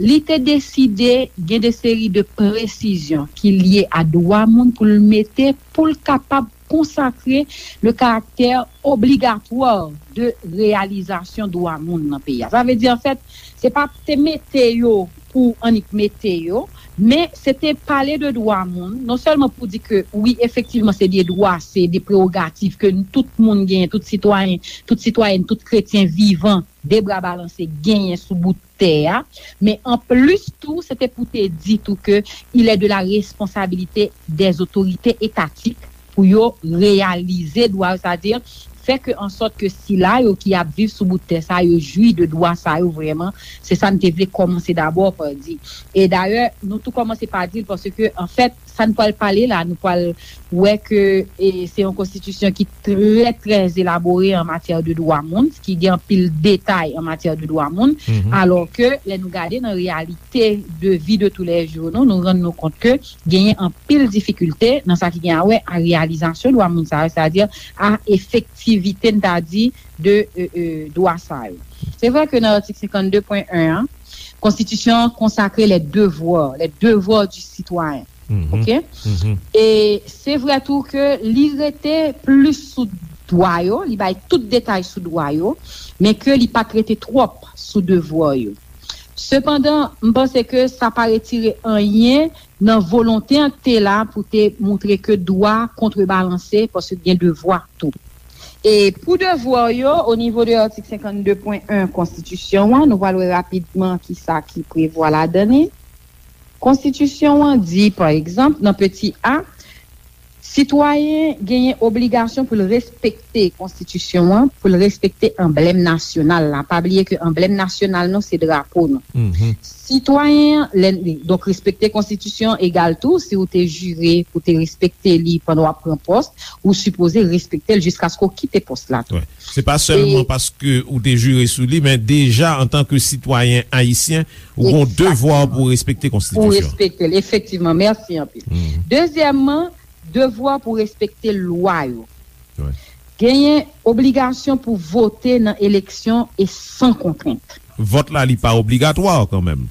li te deside gen de seri de presizyon ki lye a dwa moun pou l mete, pou l kapab konsakre le karaktè obligatwa de reyalizasyon dwa moun nan peyi a. Sa vle di, anfèt, se pa te mete yo pou annik mete yo, men se te pale de dwa moun, non sèlman pou di ke, wi, efektivman, se de dwa, se de prewogativ ke tout moun genyen, tout sitwayen, tout sitwayèn, tout kretyen vivan, de bra balanse, genyen sou bout tè a, men anplis tou, se te pou te di tou ke il est de la responsabilité des autorités étatiques pou yo reyalize dwa yo, sa di fè ke an sòt ke sila yo ki ap viv sou bout tè sa yo jwi de dwa sa yo vrèman. Se sa n te vle kòmanse dabò pa di. E dayè, nou tou kòmanse pa di l paske, anfèt, sa n pral pale la, nou pral wè ke, e, se yon konstitisyon ki trè, trè elabore an matyè de dwa moun, ki gen anpil detay an matyè de dwa moun, alò ke lè nou gade nan reyalite de vi de toulèjou nou, nou rann nou kont ke genyen anpil difikilte nan sa ki gen a wè a reyalizasyon dwa moun sa yo, sètadi a efektivite, n ta di, de, e, e, dwa sa yo. Se vre ke nan atik senkannde pwen en an, konstitisyon an konsakre les devoirs, les devoirs du citoyen. Oke? E se vre tou ke li rete plis sou dwa yo, li bay tout detay sou dwa yo, men ke li pa t rete twòp sou devwa yo. Sepandan, m panse ke sa pa retire anyen nan volonte an k te la pou te moutre ke dwa kontrebalanse, paske gen devwa tou. E pou devwa yo, o nivo de atik senkannde pwen en konstitisyon an, nou pral wè rapidman kisa ki prevwa ladan li. Konstitisyon an di, pa egzanp, nan peti a, sitwayen genyen obligasyon pou l respekte konstitisyon an, pou l respekte anblèm nasyonal la. Pa bliye ke anblèm nasyonal nou se drapo nou. Sitwayen an, lè, donk, respekte konstitisyon an egal tou, si w te jire pou te respekte li pandan w ap pran pòs, ou sipoze respekte l jiskaske w kite pòs la tou. Wi. Se pa sèlman paske ou te jire sou li, men deja antanke sitwayen ayisyen, ou gon devwa pou respekte konstitisyon. Pou respekte l, efektivman. Mèsi anpil. Dezyèmman, devwa pou respekte lwa yo. Wi. Genyen obligasyon pou vote nan eleksyon e san kontrent. Vòt la, li pa obligatwa kanmenm.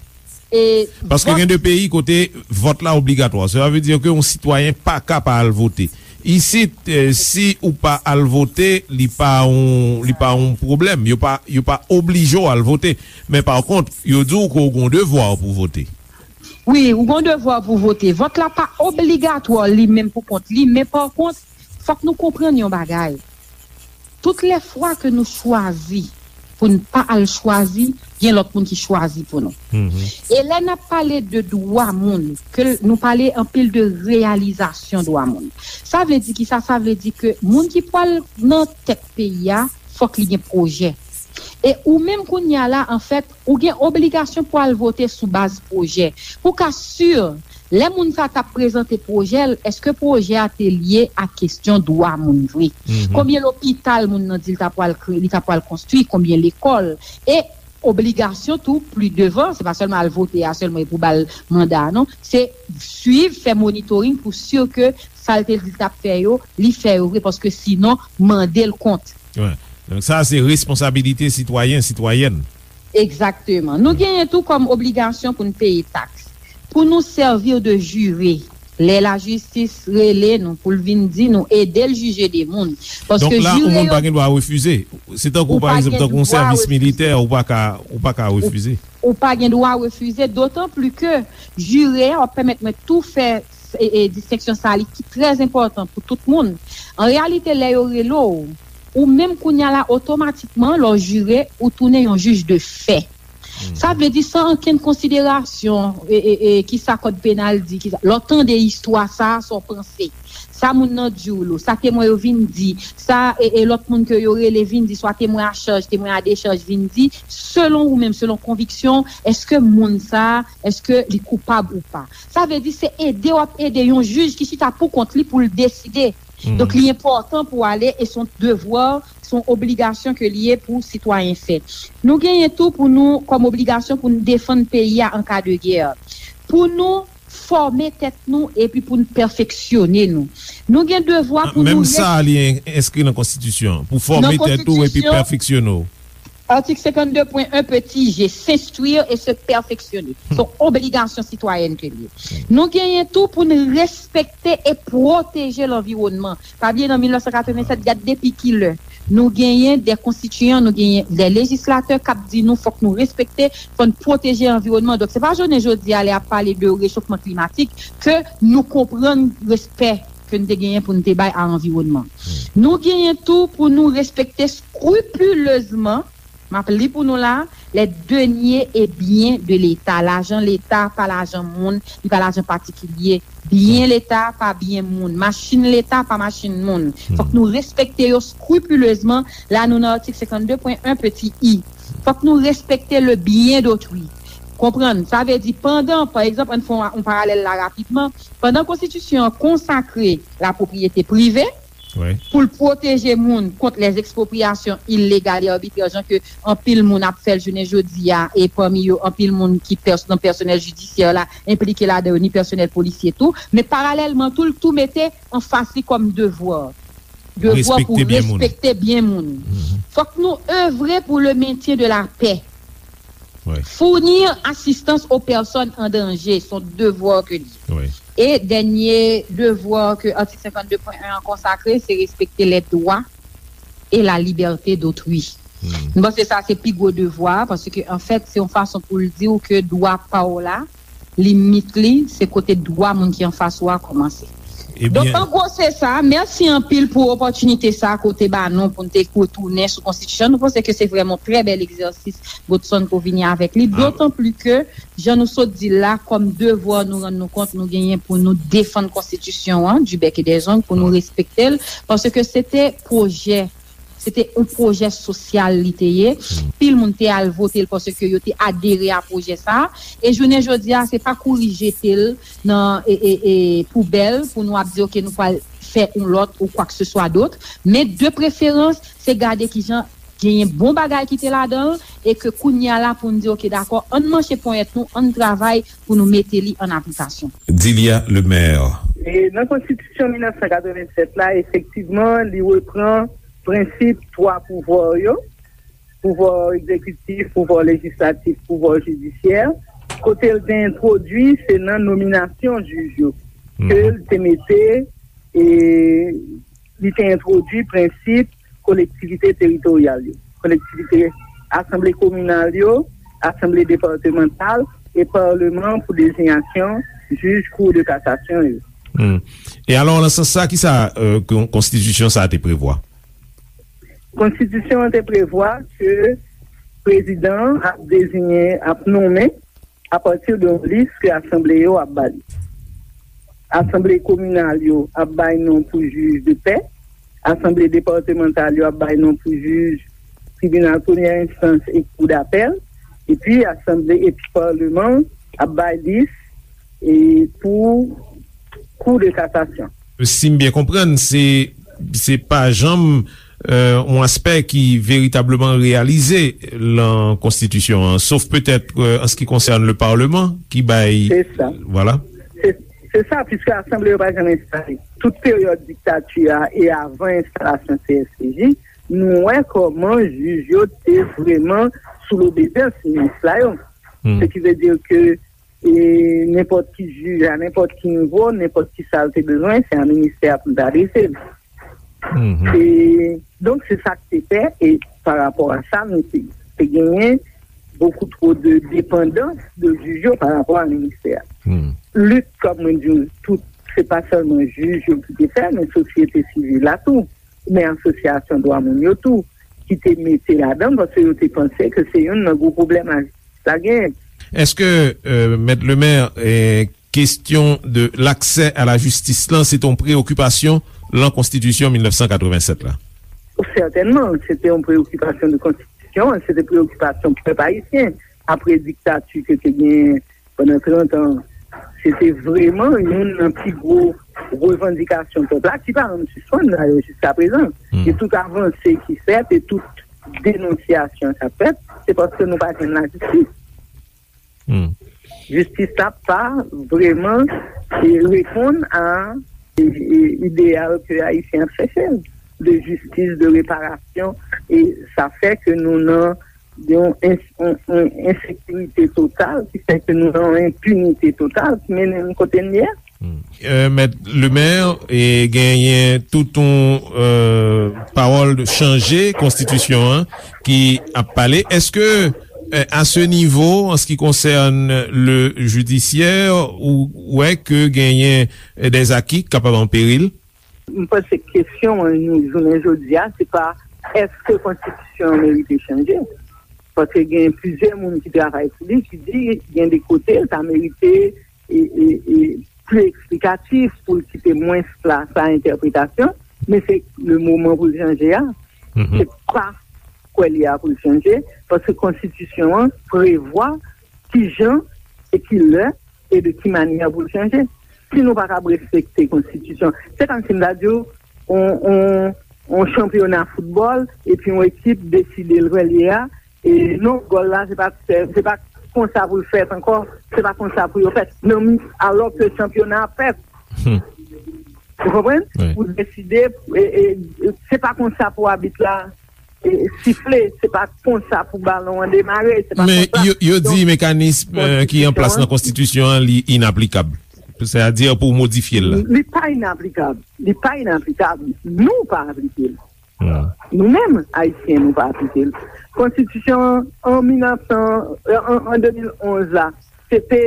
E paske gen de peyi kote vòt la obligatwa. Sa vle di ke yon sitwayen pa ka pa al vote. Isit, eh, si ou pa al vote, li pa yon, li pa yon pwoblèm. Yo pa, yo pa oblije w al vote. Men pa kont, yo di w ke w gon devwa pou vote. Wi, ou gon devwa pou vote. Vòt la pa obligatwa li menm pou kont li, men pa kont, fòk nou konprann yon bagay. Tout lè fwa ke nou chwazi pou n pa al chwazi, gen lòt moun ki chwazi pou nou. E lè n ap pale de dwa moun, ke l, nou pale anpil de reyalizasyon dwa moun. Sa vle di ki sa? Sa vle di ke moun ki pral nan tèt peyi a, fòk li gen pwojè. E ou menm kounye a la, anfèt, ou gen obligasyon pou al vote sou baz pwojè. Pou w ka si Lè moun sa t ap prezante pwojè l, èske pwojè a te lye a kesyon dwa moun vre? Konbyen lopital moun nan di l ta pral kre-, li ta pral konstwi, konbyen lekòl? E obligasyon tou, pli devan, se pa sèlman al vote a sèlman e pou ba l manda a, non. Se swiv, fè monitoring pou si ke sa l te di l t ap fè yo, li fè yo vre, paske sinon, mande l kont. Wi. Donk, sa, se responsabilite sitwayen, sitwayèn. Egzakteman. Nou genyen tou kòm obligasyon pou n peye taks. Pou nou sèvi de jire. Lè lajistis rele nou pou l vin di nou ede l jije de moun. Paske Donk la, yon jire moun yo pa gen dwa refize. Se tankou, Ou pa pa gen egzanp, tankou yon dwa sèvis refize. militè, ou pa ka, ou pa ka Ou, refize. ou pa gen dwa refize, dotan pli ke jire a w ap pèmèt mwen tou fè e, e, distenksyon sa li ki trè enpòtan pou tout moun. An reyalite, lè yo rele w, ou menm kounye a la, otomatikman, lè w jire, ou tounen yon jij de fè. Sa vle di, san ankenn konsiderasyon, e, e, e, ki sa kòd penal di, ki sa, lè w tande istwa sa a, sa w panse. Sa moun nan di w lo, sa temwen yo vin di, sa, e, e, lòt moun ke yo rele vin di, swa temwen a chaj, temwen a dechaj vin di, selon ou menm, selon konviksyon, èske moun sa a, èske li koupab ou pa? Sa vle di, se ede w ap ede yon jij ki chita pou kont li pou l deside. Donk, li enpòtan pou w ale, e se yon devwa, se yon obligasyon ke li ye pou sitwayen fè. Nou genyen tou pou nou, kòm obligasyon pou nou defann peyi a an ka de gè. Pou nou fòme tèt nou epi pou nou pèfeksyone nou. Nou gen devwa pou Menm nou sa, li en- enskri nan konstitisyon. Pou fòme Nan tèt ou epi konstitisyon, pèfeksyone w. Atik senkanndepwen en peti G, s'instruire et se perfectionner. Se yon obligasyon sitwayèn ke li ye. Nou genyen tou pou n respekte e pwoteje lanviwònman. Pa bliye, nan mil nèf san katrevennsèt, gad depi ki lè nou genyen de konstitiyan, nou genyen de lejislatè k ap di nou fòk nou respekte, fò n pwoteje anviwònman. Donk, se pa jounen jodi a, lè y ap pale de rechofman klimatik, ke nou konprann respè ke n te genyen pou n te bay a anviwònman. Nou genyen tou pou nou respekte skripilezman, m ap li pou nou la, les deniers et biens de l'État. Lajan Leta pa lajan moun, li pa lajan patikilye. Byen Leta pa byen moun. Machin Leta pa machin moun. Fòk nou respekte yo skripilezman. La, nou nan atik senkanndepwen en peti i. Fòk nou respekte le bien d'autrui. Konprann? Sa vle di, pandan, pa egzanp, ann fè yon, yon paralèl la rapidman, pandan konstitisyon an konsakre lapwopriyete prive, Wi. pou l pwoteje moun kont les expropriations illégales et arbitraires, jan ke anpil moun ap fè l jounen jodi a, e pami yo, anpil moun ki pès-, nan pèsonèl jidisyè la, enplike ladan yo, ni pèsonèl polisye tou. Men paralèlman tou, l tou mete anfas li kòm devwa. Devwa pou Respekte byen moun. respekte byen moun. Fòk nou evre pou le maintien de la paix. Wi. Fournir assistance aux personnes en danger, se yon devwa ke li ye. Wi. E dènye devwa ke atik senkanndepwen en an konsakre, se respekte les droits et la liberté d'autrui. M panse sa se pi gwo devwa, paske, anfèt, se yon fason pou l di w ke dwa pa w la, limit li, se kote dwa moun ki anfas ou a kòmanse. Donk, Ebyen, an gwo, se sa. Mèsi anpil pou opòtinite sa ke w te ba nou pou n te retounen sou konstitisyon. Nou panse ke se vrèman yon trè bèl egzèsis, Godson, ke w vini avèk li. Ah. Dotan pli ke, jan nou sot di l la, kòm devwa, nou rann nou kont, nou genyen pou nou defann konstitisyon an, du bec et des ongles, pou nou respekte l, paske se te pwojè, se te yon pwojè sosyal li te ye. Pil moun te al vote l paske yo te adere a pwojè sa a. E jounen jodi a, se pa kouri jete l nan, e, e, e, poubèl pou nou ap di, "Ok, nou pral fè yon lòt ou kwa ke se swa dòt." Men de preferans, se gade kijan genyen bon bagay ki te ladan l e ke kounye a la pou n di, "Ok, dakò, ann manche ponyèt nou, ann travay pou nou mete li an aplikasyon." Dilia Lemaire. E nan konstitisyon mil nèf san katrevennsèt la, efektivman, li repran prensip twa pouvwa yo, pouvwa egzekitif, pouvwa lejislatif, pouvwa jidisyè. Kote l te entwodui, se nan nominasyon jij yo ke l te mete, e li te entwodui prensip kolektivite teritoryal yo, kolektivite, asanble kominal yo, asanble depatmantal e palman pou dezinyasyon jij Cour de cassation yo. Hmm. E alò, nan sans sa, ki sa, euh, kon-, konstitisyon sa a te prevwa? Konstitisyon an te prevwa ke prezidan an ap deziyen, ap nonmen apati de yon lis ke asanble yo ap ba li. Asanble kominal yo ap bay non pou jij de pè, asanble depatmantal yo ap bay non pou jij tribinal premyè enstans e kou dapèl, epi asanble epi palman ap bay lis e pou Kou de Kasasyon. Si m byen konprann, se, se pa janm, euh, yon aspè ki veritableman reyalize lan konstitisyon an, sof petèt, euh, an se ki konsène le Parlement, ki bay... Se sa. Vwala. Se, se sa, piske asanble yo pa janm enstale. Tout peryòd diktati a e avan enstalasyon C S P J, nou wè kòman jij yo te vrèman sou lobedans minis la yo. Se ki vle di ke e nenpòt ki jij a nenpòt ki nivo, nenpòt ki sa l te bezwen, se a ministè a pou l te adrese l. E, donk, se sa k te fè, e pa rapò a sa, nou te, te genyen beaucoup trop de dépendance de jij yo pa rapò a ministè a. Lit, kòm mwen di w, tout, se pa sèlman jij yo ki te fè, men sosyete sivil la tou, men asosyasyon dwa moun yo tou, ki te mete ladan, paske yo te panse ke se youn nan gwo pwoblèm la, la genyen. Èske, euh, Mèt Lemaire, eh, kesyon de l'accès à la justice lan, se te yon preyokipasyon lan konstitisyon mil nèf san katrevennsèt la? Sètènman, se te yon preyokipasyon de konstitisyon, se te preyokipasyon pèp ayisyen. Apre diktati ke te genyen pandan trant an, se te vrèman youn nan pi gwo revandikasyon pèp la, ki pa janm sispann dayè jiska prezan. E tout avanse ki fèt e tout denonsyasyon k ap fèt, se paske nou pa jwenn lajistis. Jistis la pa vrèman, e, reponn a, e, e, ideyal ke Ayisyen ap chèche, de jistis, de reparasyon, e sa fè ke nou nan yon ens-, yon, yon ensekirite total, ki fè ke nou nan yon enpinite total, ki mennen n kote n ye a. Euh, Mèt Lemaire, e genyen tout yon, euh, pawòl de chanje konstitisyon an ki ap pale. Èske, euh, à ce niveau, en ce qui concerne le judiciaire, ou wè ke genyen, euh, des acquis k kapab an peril? M panse kesyon an nou jounen jodi a, se pa èske konstitisyon an merite chanje. Paske gen plizyè moun ki travay sou li, ki di gen de kote l ta merite e, e, e, pli eksplikatif, pou l kite mwens plas a entèpretasyon, men se le moman pou l chanje a. Se pa kwè li a pou l chanje, paske konstitisyon an prevwa ki jan e ki lè e de ki manyè pou l chanje. Si nou pa kab respekte konstitisyon, se kòmsi m ta di w, on, on, on chanpyona foutbòl, epi yon ekip deside l kwè li a, e non, gòl la, se pa, se, se pa konsa pou l fèt ankò, se pa konsa pou yo fèt. Non, alò ke chanpyona ap fèt. Ou konprann? Ou deside, e, e, se pa konsa pou abit la, e, sifle, se pa konsa pou balon an demare, se pa konsa. Men yo, yo di mekanism, euh, ki an plas nan konstitisyon an, li inaplikab. Sètadi pou modifye l la. Li pa inaplikab. Li pa inaplikab. Nou pa aplike l. Nou menm, Ayisyen, nou pa aplike l. Konstitisyon an mil nèf san, an, an de mil onz la, se te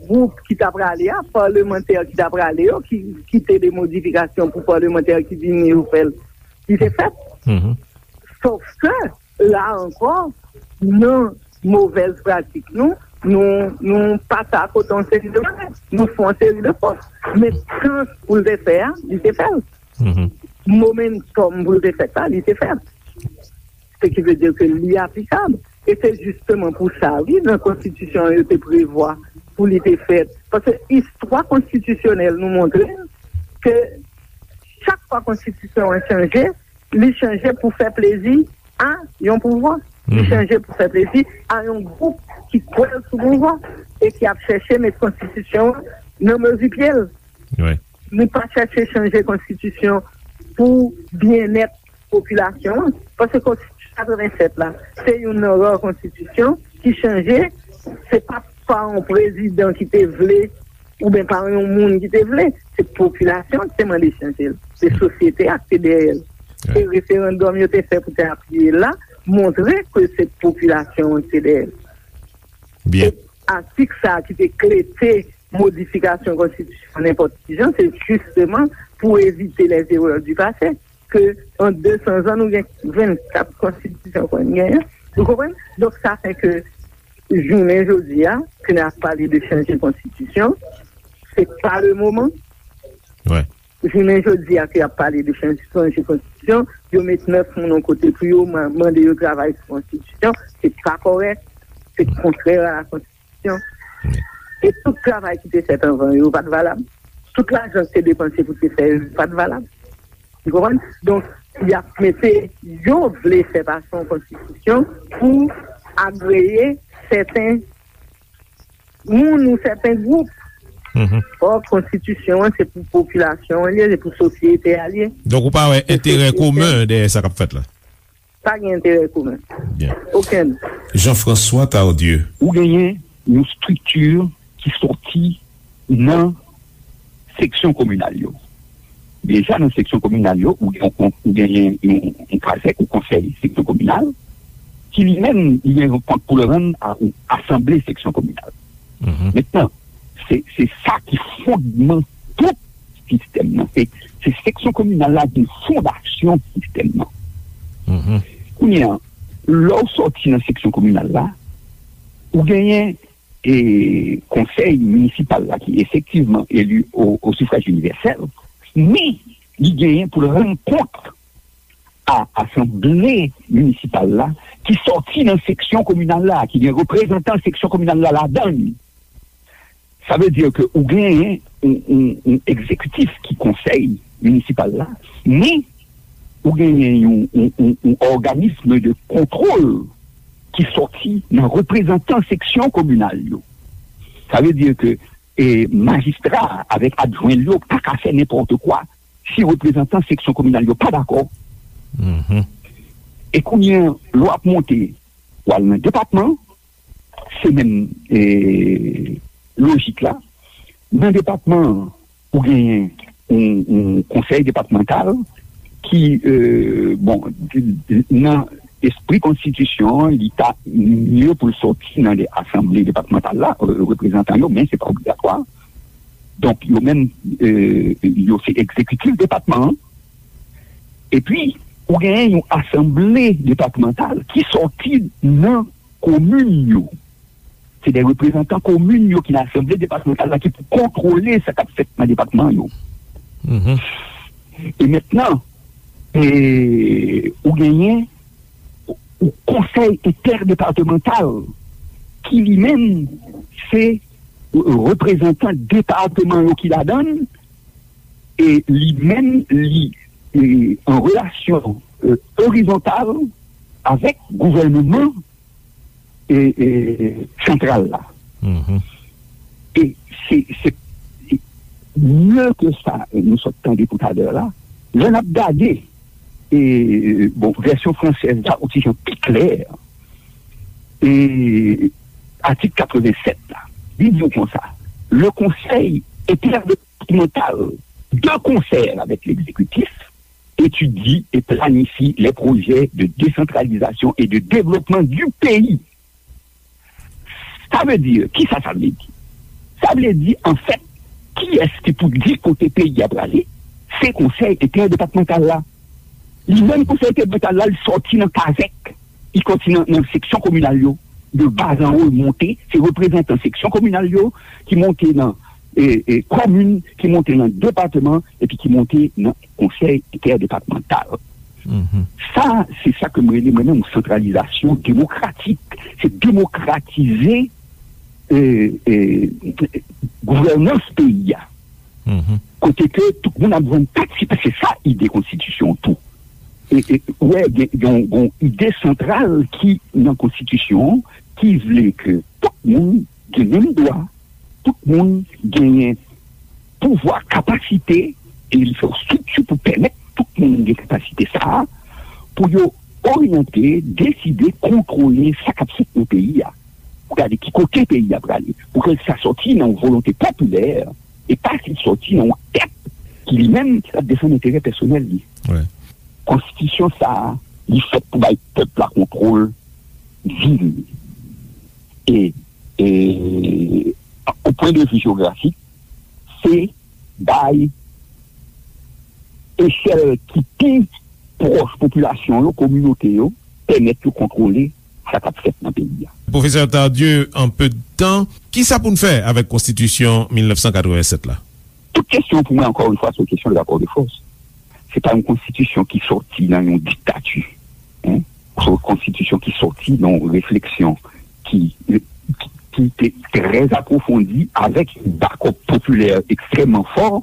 gwoup ki ta prale a, palmantè ki ta prale yo, ki, ki te de modifikasyon pou palmantè ki vini yo fè l. Li te fèt. Sòf ke, la ankò, nan movèz pratik nou, nou, nou pase akote yon seri de bagay. Nou fè yon seri de fòt. Men kan pou l te fè a, li te fè l. Momentòm pou l te fèt la, li te fèt. Se ki vle di ke li aplikab. E se jisteman pou sa, wi, nan konstitisyon an, yo te prevwa pou li te fèt. Paske istwa konstitisyonèl nou montre n ke chak fwa konstitisyon an chanje, li chanje pou fè plezi a yon pouvwa. Li chanje pou fè plezi a yon gwoup ki kwè l sou pouvwa e ki ap chèche met konstitisyon an nan mezi pye l. Li pa chèche chanje konstitisyon pou byennèt popilasyon an. Paske konstitisyon katrevennsèt la, se youn nan ra konstitisyon ki chanje, se pa pa yon prezidan ki te vle, oubyen pa yon moun ki te vle, se popilasyon ki te mande chanje l. Se sosyete a ki te dèyè l. E referandòm yo te fè pou te apiye l la, montre ke se popilasyon an ki te dèyè l. E atik sa a ki te klete modifikasyon konstitisyon nenpòt ki jan, se jisteman pou evite les erreurs du passé, ke an de san zan, nou gen vennkat konstitisyon pou n genyen. Ou konprann? Donk, sa fè ke jounen jodi a, ke n ap pale de chanje konstitisyon, se pa le moman. Jounen jodi a, ke y ap pale de chanje, chanje konstitisyon, yo met nèf moun yon kote pou yo ma-, mande yo travay sou konstitisyon, se pa kòrèk, se kontrè a la konstitisyon. E tout travay ki te fèt anvan yo pa t valab. Tout lajan ki te depanse pou te fè yo pa t valab. Ou konprann? Donk, y ap mete, yo vle fè pase yon konstitisyon pou agreye sèten moun ou sèten gwoup. Ò, konstitisyon an, se pou popilasyon an li ye, se pou sosyete a li ye. Donk, ou pa wè enterè komen dèyè sa k ap fèt la? Pa gen enterè komen. Byen. Okenn. Jean-François Tardieu. Ou genyen yon estrikti ki sòti nan seksyon kominal yo. Deja nan seksyon kominal yo, ou gen, ou genyen yon, yon kazèk ou konsèy seksyon kominal, ki li menm, li gen yon kont pou l rann a, ou asanble seksyon kominal. Mentnan, se, se sa ki fondman tout sistèm nan. Se, se seksyon kominal la ki fondasyon sistèm nan. Kounye a, lè w sòti nan seksyon kominal la, ou genyen e konsèy minisipal la ki efektivman eli o, o sifraj inivèsèl, men li genyen pou l rann kont a asanble minisipal la ki sòti nan seksyon kominal la, ki gen reprezantan seksyon kominal la ladan l. Sa vle di ke ou genyen yon, yon, yon egzekitif ki konsèy minisipal la, men ou genyen yon, yon, yon, yon òganism de kontwòl ki sòti nan reprezantan seksyon kominal yo. Sa vle di ke, e, majistra avèk adjwen l yo pa ka fè nenpòt kwa si reprezantan seksyon kominal yo pa dakò. E kounye a, lè w ap monte, w al nan depatman, se menm, e, lojik la. Nan depatman an, ou genyen yon, yon konsèy depatmantal ki, e, bon, di, di, nan espri konstitisyon an, li ta mye pou l sòti nan de asanble depatmantal la, e, reprezantan yo, men se pa obligatwa. Donk, yo menm, e, yo se egzekitif depatman an. Epi, ou genyen yon asanble depatmantal ki sòti nan komin yo. Se de reprezantan komin yo ki nan asanble depatmantal la ki pou kontwole sa k ap fèt nan depatman yo. E mentnan, e, ou genyen yon konsèy entèdepatmantal ki li menm se reprezantan depatman yo ki ladan l, e li menm li, e, an relasyon, e, orizontal avèk gouvènman, e, e, santral la. E se, se, e, mye ke sa, e, nou sot tande toutalè la, lè n ap gade, e, bon, vèsyon fransèz la, ou ti jan pi klè, e, atik katrevennsèt la, li di w konsa, le Conseil interdépartemental, de concert avec l'exécutif, étudie et planifie les projets de décentralisation et de développement du pays. Sa vle di, kisa sa vle di? Sa vle di, anfèt, kiyès ki pou di kote peyi a prale? Se konsèy entèdepatmantal la. Li menm konsèy entèdepatmantal la, li sòti nan kazèk, li sòti nan, nan seksyon kominal yo. De bas en haut, li monte, se reprezantan seksyon kominal yo ki monte nan, e, e, komin, ki monte nan depatman, epi ki monte nan konsèy entèdepatmantal. Sa, se sa ke m rele mwen menm yon santralizasyon demokratik. Se demokratize, e, e, gouvènans peyi a. Kote ke tout moun ap jwenn patisipe, se sa ide konstitisyon tou. E, e, ou wè, gen, gen, gen yon ide santral ki nan konstitisyon an, ki vle ke tout moun gen menm dwa, tout moun genyen pouvwa, kapasite, e li fè yon estrikti pou pèmèt tout moun gen kapasite sa a, pou yo oryante, deside, kontwole sa k ap fèt nan peyi a. Pou gade ki kote peyi a prale. Pou ke sa sòti nan yon volonte popilè, e pa ki sòti nan yon tèt ki li menm ap defann enterè pèsonèl li. Konstitisyon sa a, li fèt pou bay pèp la kontwòl di li. E, e, o pwen de vi jewografik, se bay echèl ki pi pwòch popilasyon yo, kominote yo, pèmèt yo kontwole sa k ap fèt nan peyi a. Pwofesè Tardieu, en peu de temps, kisa pou n fè avèk konstitisyon mil nèf san katrevennsèt la? Tout kesyon pou mwen, ankò yon fwa, se yon kesyon de rapò de fòs. Se pa yon konstitisyon ki sòti nan yon diktati. Hein? Se yon konstitisyon ki sòti nan yon refleksyon ki, ki, ki te trè apwofondi, avèk yon bakòp popilè ekstrèmman fò,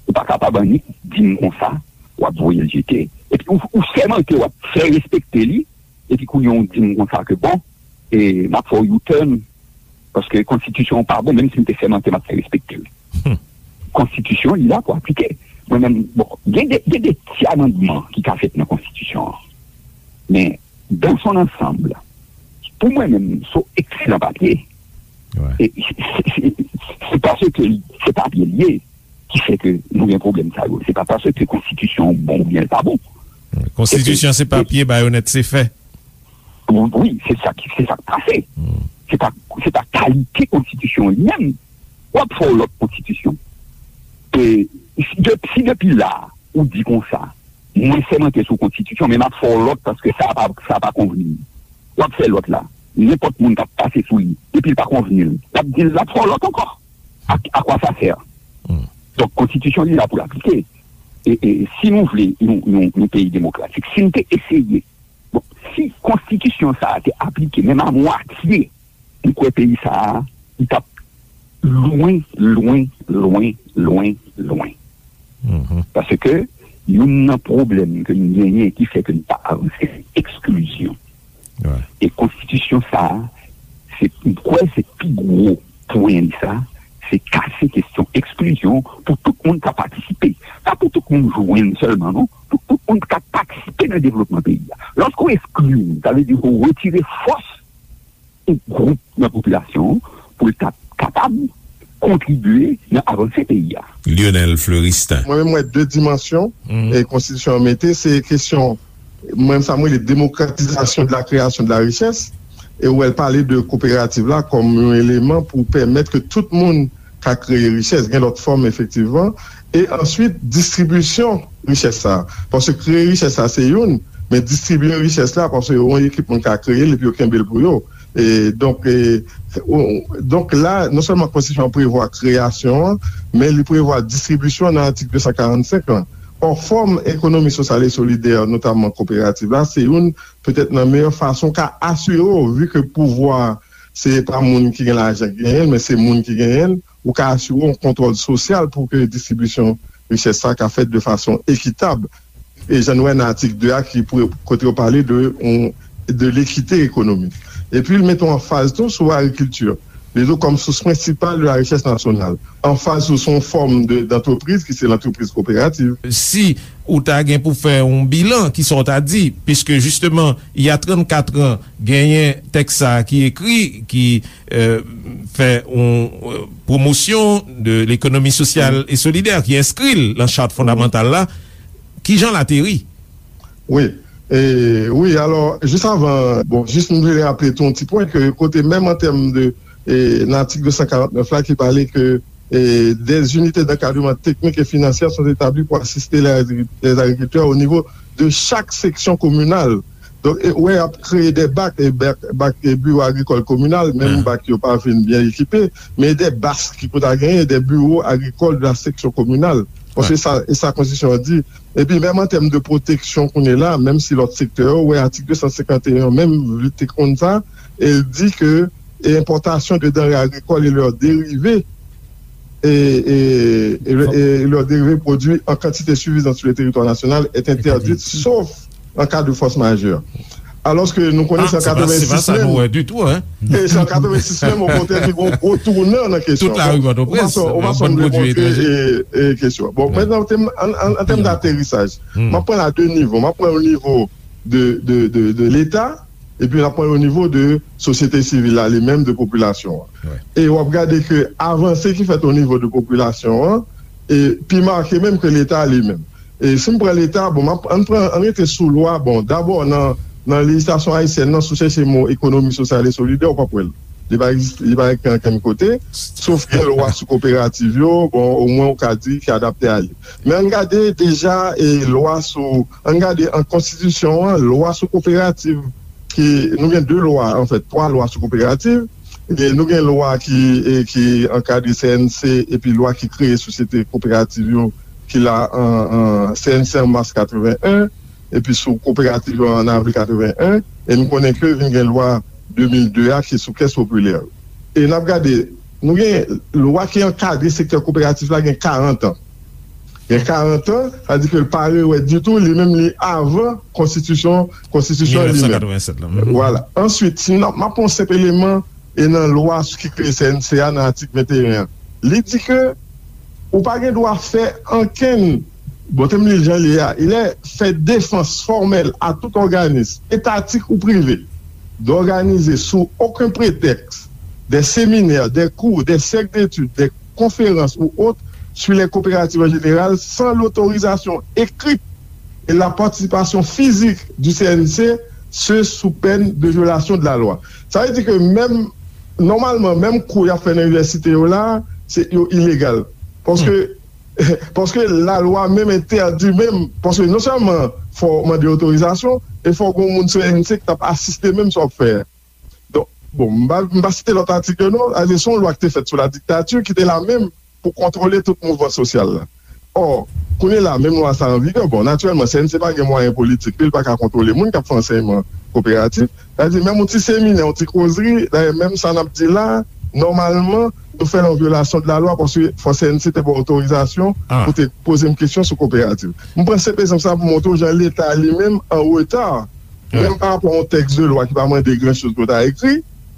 ou pa kapab annik di m konsa, w ap voye l jete. Epi ou, ou sèmante w ap fè respekte li, epi kounye a ou di m konsa ke bon, e, m ap fè w U-turn, paske konstitisyon an pa bon, menm si m te sèmante m ap fè respekte l. Konstitisyon an li la pou aplike. Mwen menm, bon, gen de, gen de ti amandman ki ka fèt nan konstitisyon an. Men, dans son ensemble, pou mwen menm, se yon ekselan papye. E se, se, se, se paske li, se papye l ye ki fè ke nou gen pwoblèm sa yo. Se pa paske konstitisyon an bon oubyen l pa bon. Konstitisyon se papye, bayonèt se fè. Wi, se sa ki, se sa k pase. Se pa, se pa kalite konstitisyon an li menm. W ap fè yon lòt konstitisyon. E si de, si depi la, ou di konsa, mwen sèmante sou konstitisyon, men m ap fè yon lòt paske sa pa, sa pa konvni m. W ap fè lòt la. Nenpòt moun k ap pase sou li, depi l pa konvni l, l ap di l l ap fè yon lòt ankò. A, à quoi ça sert? Donk, konstitisyon li la pou l aplike. E, e si nou vle yon, yon, yon peyi demokratik, si n te eseye, bon, si konstitisyon sa a te aplike menm a mwatye, m kwè peyi sa a, li t ap lwen, lwen, lwen, lwen, lwen. Paske youn nan pwoblèm ke n genyen ki fè ke n pa avanse, se eksklizyon. E konstitisyon sa a, se, m kwè se pi gwo pwen li sa, se kase kesyon eksklizyon pou tout moun ka patisipe. Pa pou tout moun jwenn sèlman, non, pou tout moun ka patisipe nan devlopman peyi a. Lòske w eskli moun, sa vle di ke w retire fòs yon gwoup nan popilasyon an pou l ta kapab kontribye nan avanse peyi a. Lionel Fleuristin. Mwen menm, m wè de dimansyon e konstitisyon an mete, se kesyon, mwen menm, sa m rele demokratizasyon de la création de la richesse, e ou wè l pale de koperativ la kòm yon eleman pou pèmèt ke tout moun ka kreye richès, gen lòt fòm efektivman, e answit distribisyon richès sa a. Paske kreye richès sa a se youn, men distribiye richès la, paske yon ekip moun ka kreye l epi yo kenbe l pou yo. E donk, e, ou, donk la, non sèlman konstitisyon an prevwa kreyasyon an, men li prevwa distribisyon an nan atik de san karannsenk lan. Ò, fòm ekonomi sosyal e solidè, notamman koperativ la, se youn petèt nan meyè fason ka asire w, vi ke pouvwa se pa moun ki gen lajan ki genyen l, men se moun ki genyen l, ou ka asire w yon kontwòl sosyal pou ke distribisyon richès sa ka fèt de fason ekitab. E jan nou wè nan atik de a ki pre-, kote yo pale de, on, de l'équité économique. Epi l mete yon anfaz tou sou agrikilti. Li di w kòm sous prensipal de la richesse nationale. Anfaz sou, sou yon fòm de, d'antreprise ki se lantrepriz koperativ. Si ou ta gen pou fè yon bilan, kisa w ta di? Piske jisteman, il y a trannkat an, genyen tèks sa a ki ekri, ki, euh, fè yon, euh, pwomosyon de lekonomi sosyal e solidè, ki enskri l nan chat fondamantal la. Kijan l ateri? Wi. E, wi, alò, jis avan, bon, jis m vle raple tou yon ti pwen ke kote menm an tèm de, e, nan atik de san karant nèf la ki pale ke, e, des unités d'encadrement techniques et financières sont établies pour assister les agri-, les agriculteurs au niveau de chaque section communale. Donk, e, wè, y ap kreye de bak, e, bak, bak, e, biro agrikòl kominal, menm bak yo pa fin byen ekipe, men de bas ki pou ta genyen, de biro agrikòl de la section communale. Bon, se sa, e sa konstitisyon an di. Epi menm an tèm de pwoteksyon kounye la, menm si lòt sektè yo, wè atik de san senkant e yon menm li te konn sa, e l di ke, e, importation de denrées agricoles et leurs dérivés, et, et, et, et leurs dérivés produits en quantité suffisante sur le territoire national est interdite, sauf en cas de force majeure. Alòske nou konnen se an katrevensis menm. E se an katrevensis menm, okontrè, ki gen yon gwo tounan nan kesyon. Tout lari Pòtoprens, ou pa sonn vle montre, e, e, kesyon. Bon, mentnan, an, an, an tèm daterisaj, m ap pran l a de nivo. M ap pran l o nivo de, de, de, de Leta, epi m ap pran l o nivo de sosyete sivil la, li menm, de popilasyon an. E w ap gade ke avanse ki fèt o nivo de popilasyon an, e pi make menm ke Leta li menm. E si m pran Leta, bon, m ap, ann pran, ann rete sou lwa, bon, dabò nan, nan lejislasyon ayisyèn nan, si w chèche mo ekonomi sosyal e solidè, ou p ap wè l. Li pa egziste, li pa ekri ankenn kote, sof gen lwa sou koperativ yo, bon, omwen ou ka di ki adapte a li. Men ann gade deja, e, lwa sou, ann gade an konstitisyon an, lwa sou koperativ, ki, nou gen de lwa, anfèt, twa lwa sou koperativ. E nou gen lwa ki, e, ki ankadre C N C, epi lwa ki kreye sosyete koperativ yo, ki la an, an C N C an mas katreven en, epi sou koperativ yo an avril katreven en, e nou konnen ke vin gen lwa de mil de a ki sou kès popilè yo. e n ap gade, nou gen lwa ki ankadre sektè koperatif la gen karant an. Gen karant an, sa di ke l pa rewè ditou, li menm li avan konstitisyon, konstitisyon li menm. Mil nèf san katrevennsèt la. Mhm. Vwala. Answit, si n ap, m ap pran yon senp eleman, e nan lwa ki kreye C N C a nan atik venteyen an. Li di ke ou pa gen dwa fè ankenn, bon, te m li l jan li ye a, il est fait défense formelle à tout organisme, étatique ou privé, d'organiser sous aucun prétexte des séminaires, des cours, des cercles d'études, des conférences ou autres sur les coopératives en général sans l'autorisation écrite et la participation physique du C N C, ce sous peine de violation de la loi. Sa vle di ke menm, nòmalman, menm kou y ap fè nan inivèsite yo la, se, yo ilegal. Paske, paske lalwa menm entèdi menm, paske non sèlman fò w mande otorizasyon, e fò w gen yon moun C N C ki t ap asiste menm sa w ap fè a. Donk, bon, m pa, m pa site lòt atik yo non, a se yon lwa ki te fèt sou la dictature ki te la menm pou kontwole tout mouvman sosyal la. Ò, kounye la, menm lwa sa an vigè, bon, natirèlman, C N C pa gen mwayen politik li, li pa ka kontwole moun k ap fè ansèyman koperatif. Sa vle di, menm yon ti seminè, yon ti kozri, dayè, menm sa n ap di la, nòmalman, nou fè l an vyolasyon de la lwa, paske fò C N C te ba w otorizasyon pou te poze m kesyon sou koperativ. M pran senp egzanp sa pou montre w jan Leta li menm an reta, menm pa rapò a yon tèks de lwa ki pa mande gran choz pou ta ekri,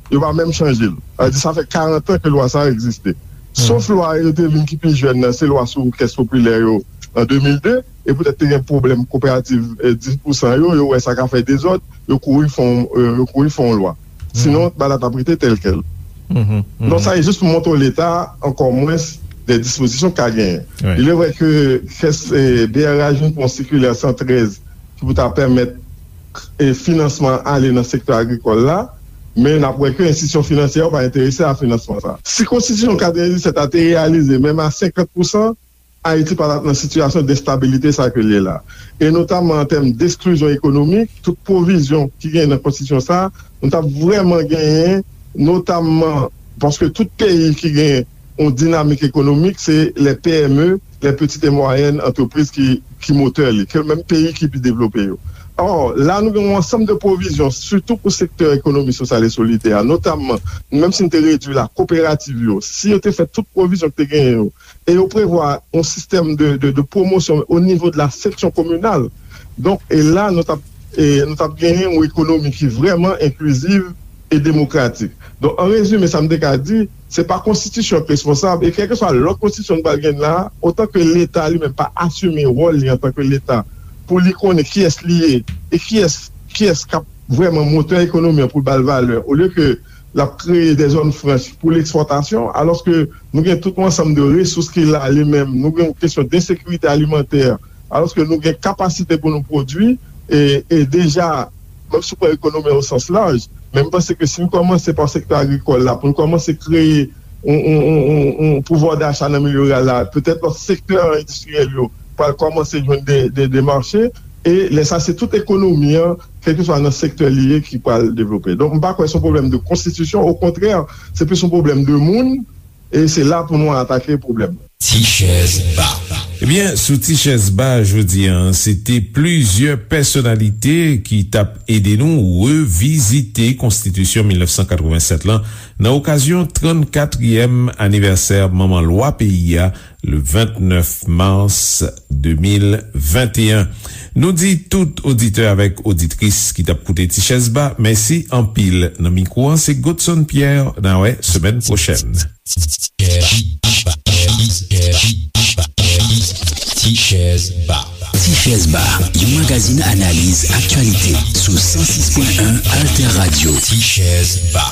yo pa menm chanje l. Sa vle di, sa fè karant an ke lwa sa a egziste. Sof lwa yo te vin ki pi jèn nan, se lwa sou kès popilè yo an de mil de, e poutèt te gen pwoblèm kooperativ, eh, dis pousan yo, yo wè sa ka fè dezòd, yo kouri fè yon, eh, yo kouri fè yon lwa. Sinon, bagay la t ap rete tèlkèl. Donk, sa e jis pou montre w Leta, ankò mwens, de dispozisyon k ka genyen. Il est vrai ke kès, eh, B R A jwenn pou yon sikilè san trèz ki pou ta pèmèt, eh, finansman ale nan sektè agrikòl la, men n ap wè ke enstitisyon finansyè yo pa enterese a finansman sa. Si konstitisyon katrevendiset la te reyalize, menm a senkant pousan, Ayiti pa t ap nan sitiyasyon de enstabilite sa ke l ye la. E notamman an tèm de eksklizyon ekonomik, tout pwovizyon ki genyen nan konstitisyon sa, nou t ap vrèman genyen, notamman paske tout peyi ki gen yon dinamik ekonomik, se les P M E, les petites et moyennes entreprises ki, ki motè li, ke menm peyi ki pi devlope yo. Ò, la nou gen yon ansanm de pwovizyon, sitou pou sektè ekonomi sosyal e solidè a, notamman, menm si n te redui la, kooperativ yo, si yo te fè tout pwovizyon ki te genyen yo, e yo prevwa yon sistèm de, de, de pwomosyon o nivo de la seksyon kominal. Donk, e la, nou t ap, e nou t ap genyen yon ekonomi ki vrèman enkliziv e demokratik. Donk, an rezime, sa m te ka di, se pa konstitisyon k responsab, e kèlkeswa lòt konstitisyon nou pral gen la, otan ke Leta li menm pa asime wòl li antanke Leta, pou li konnen kiyès li ye, e kiyès, kiyès k ap vrèman motè ekonomi an pou l ba l valè, olye ke l ap kreye de zòn franch pou lekspòtasyon, alòske nou gen tout yon ansanm de resous ki la li menm, nou gen yon kesyon de ensekirite alimantè, alòske nou gen kapasite pou nou pwodui, e, e deja, menm si w pran ekonomi o sans laj, men m panse ke si n kòmanse pa sektè agrikòl la, pou n kòmanse kreye yon, yon, yon, yon, yon pouvwa dacha nan milye riral la, petèt lòt sektè endistriyèl yo pral kòmanse jwenn de, de, de mache, e lè sa se tout ekonomi an, kèlkeswa nan sektè li ye, ki pral devlope. Donk, m pa kwè se yon pwoblèm de konstitisyon, okontrè, se plis yon pwoblèm de moun, e se la pou nou atake pwoblèm nan. Ti chèz ba. Ebyen, sou Ti chèz ba jodi a, se te plizyè pèsonalite ki t ap ede nou revizite konstitisyon mil nèf san katrevennsèt lan nan okazyon trannkatriyèm anivèsè manman lwa peyi a, le vennèf mas de mil venteyen. Nou di tout oditè avèk oditris ki t ap koute Ti chèz ba, mèsi anpil. Nan mikwo an, se Godson Pierre. N a wè semèn pwochèn. Ti chèz ba. Ti chèz ba, yon magazin analiz aktyalite sou san sis pwen en Alter Radio. Ti chèz ba.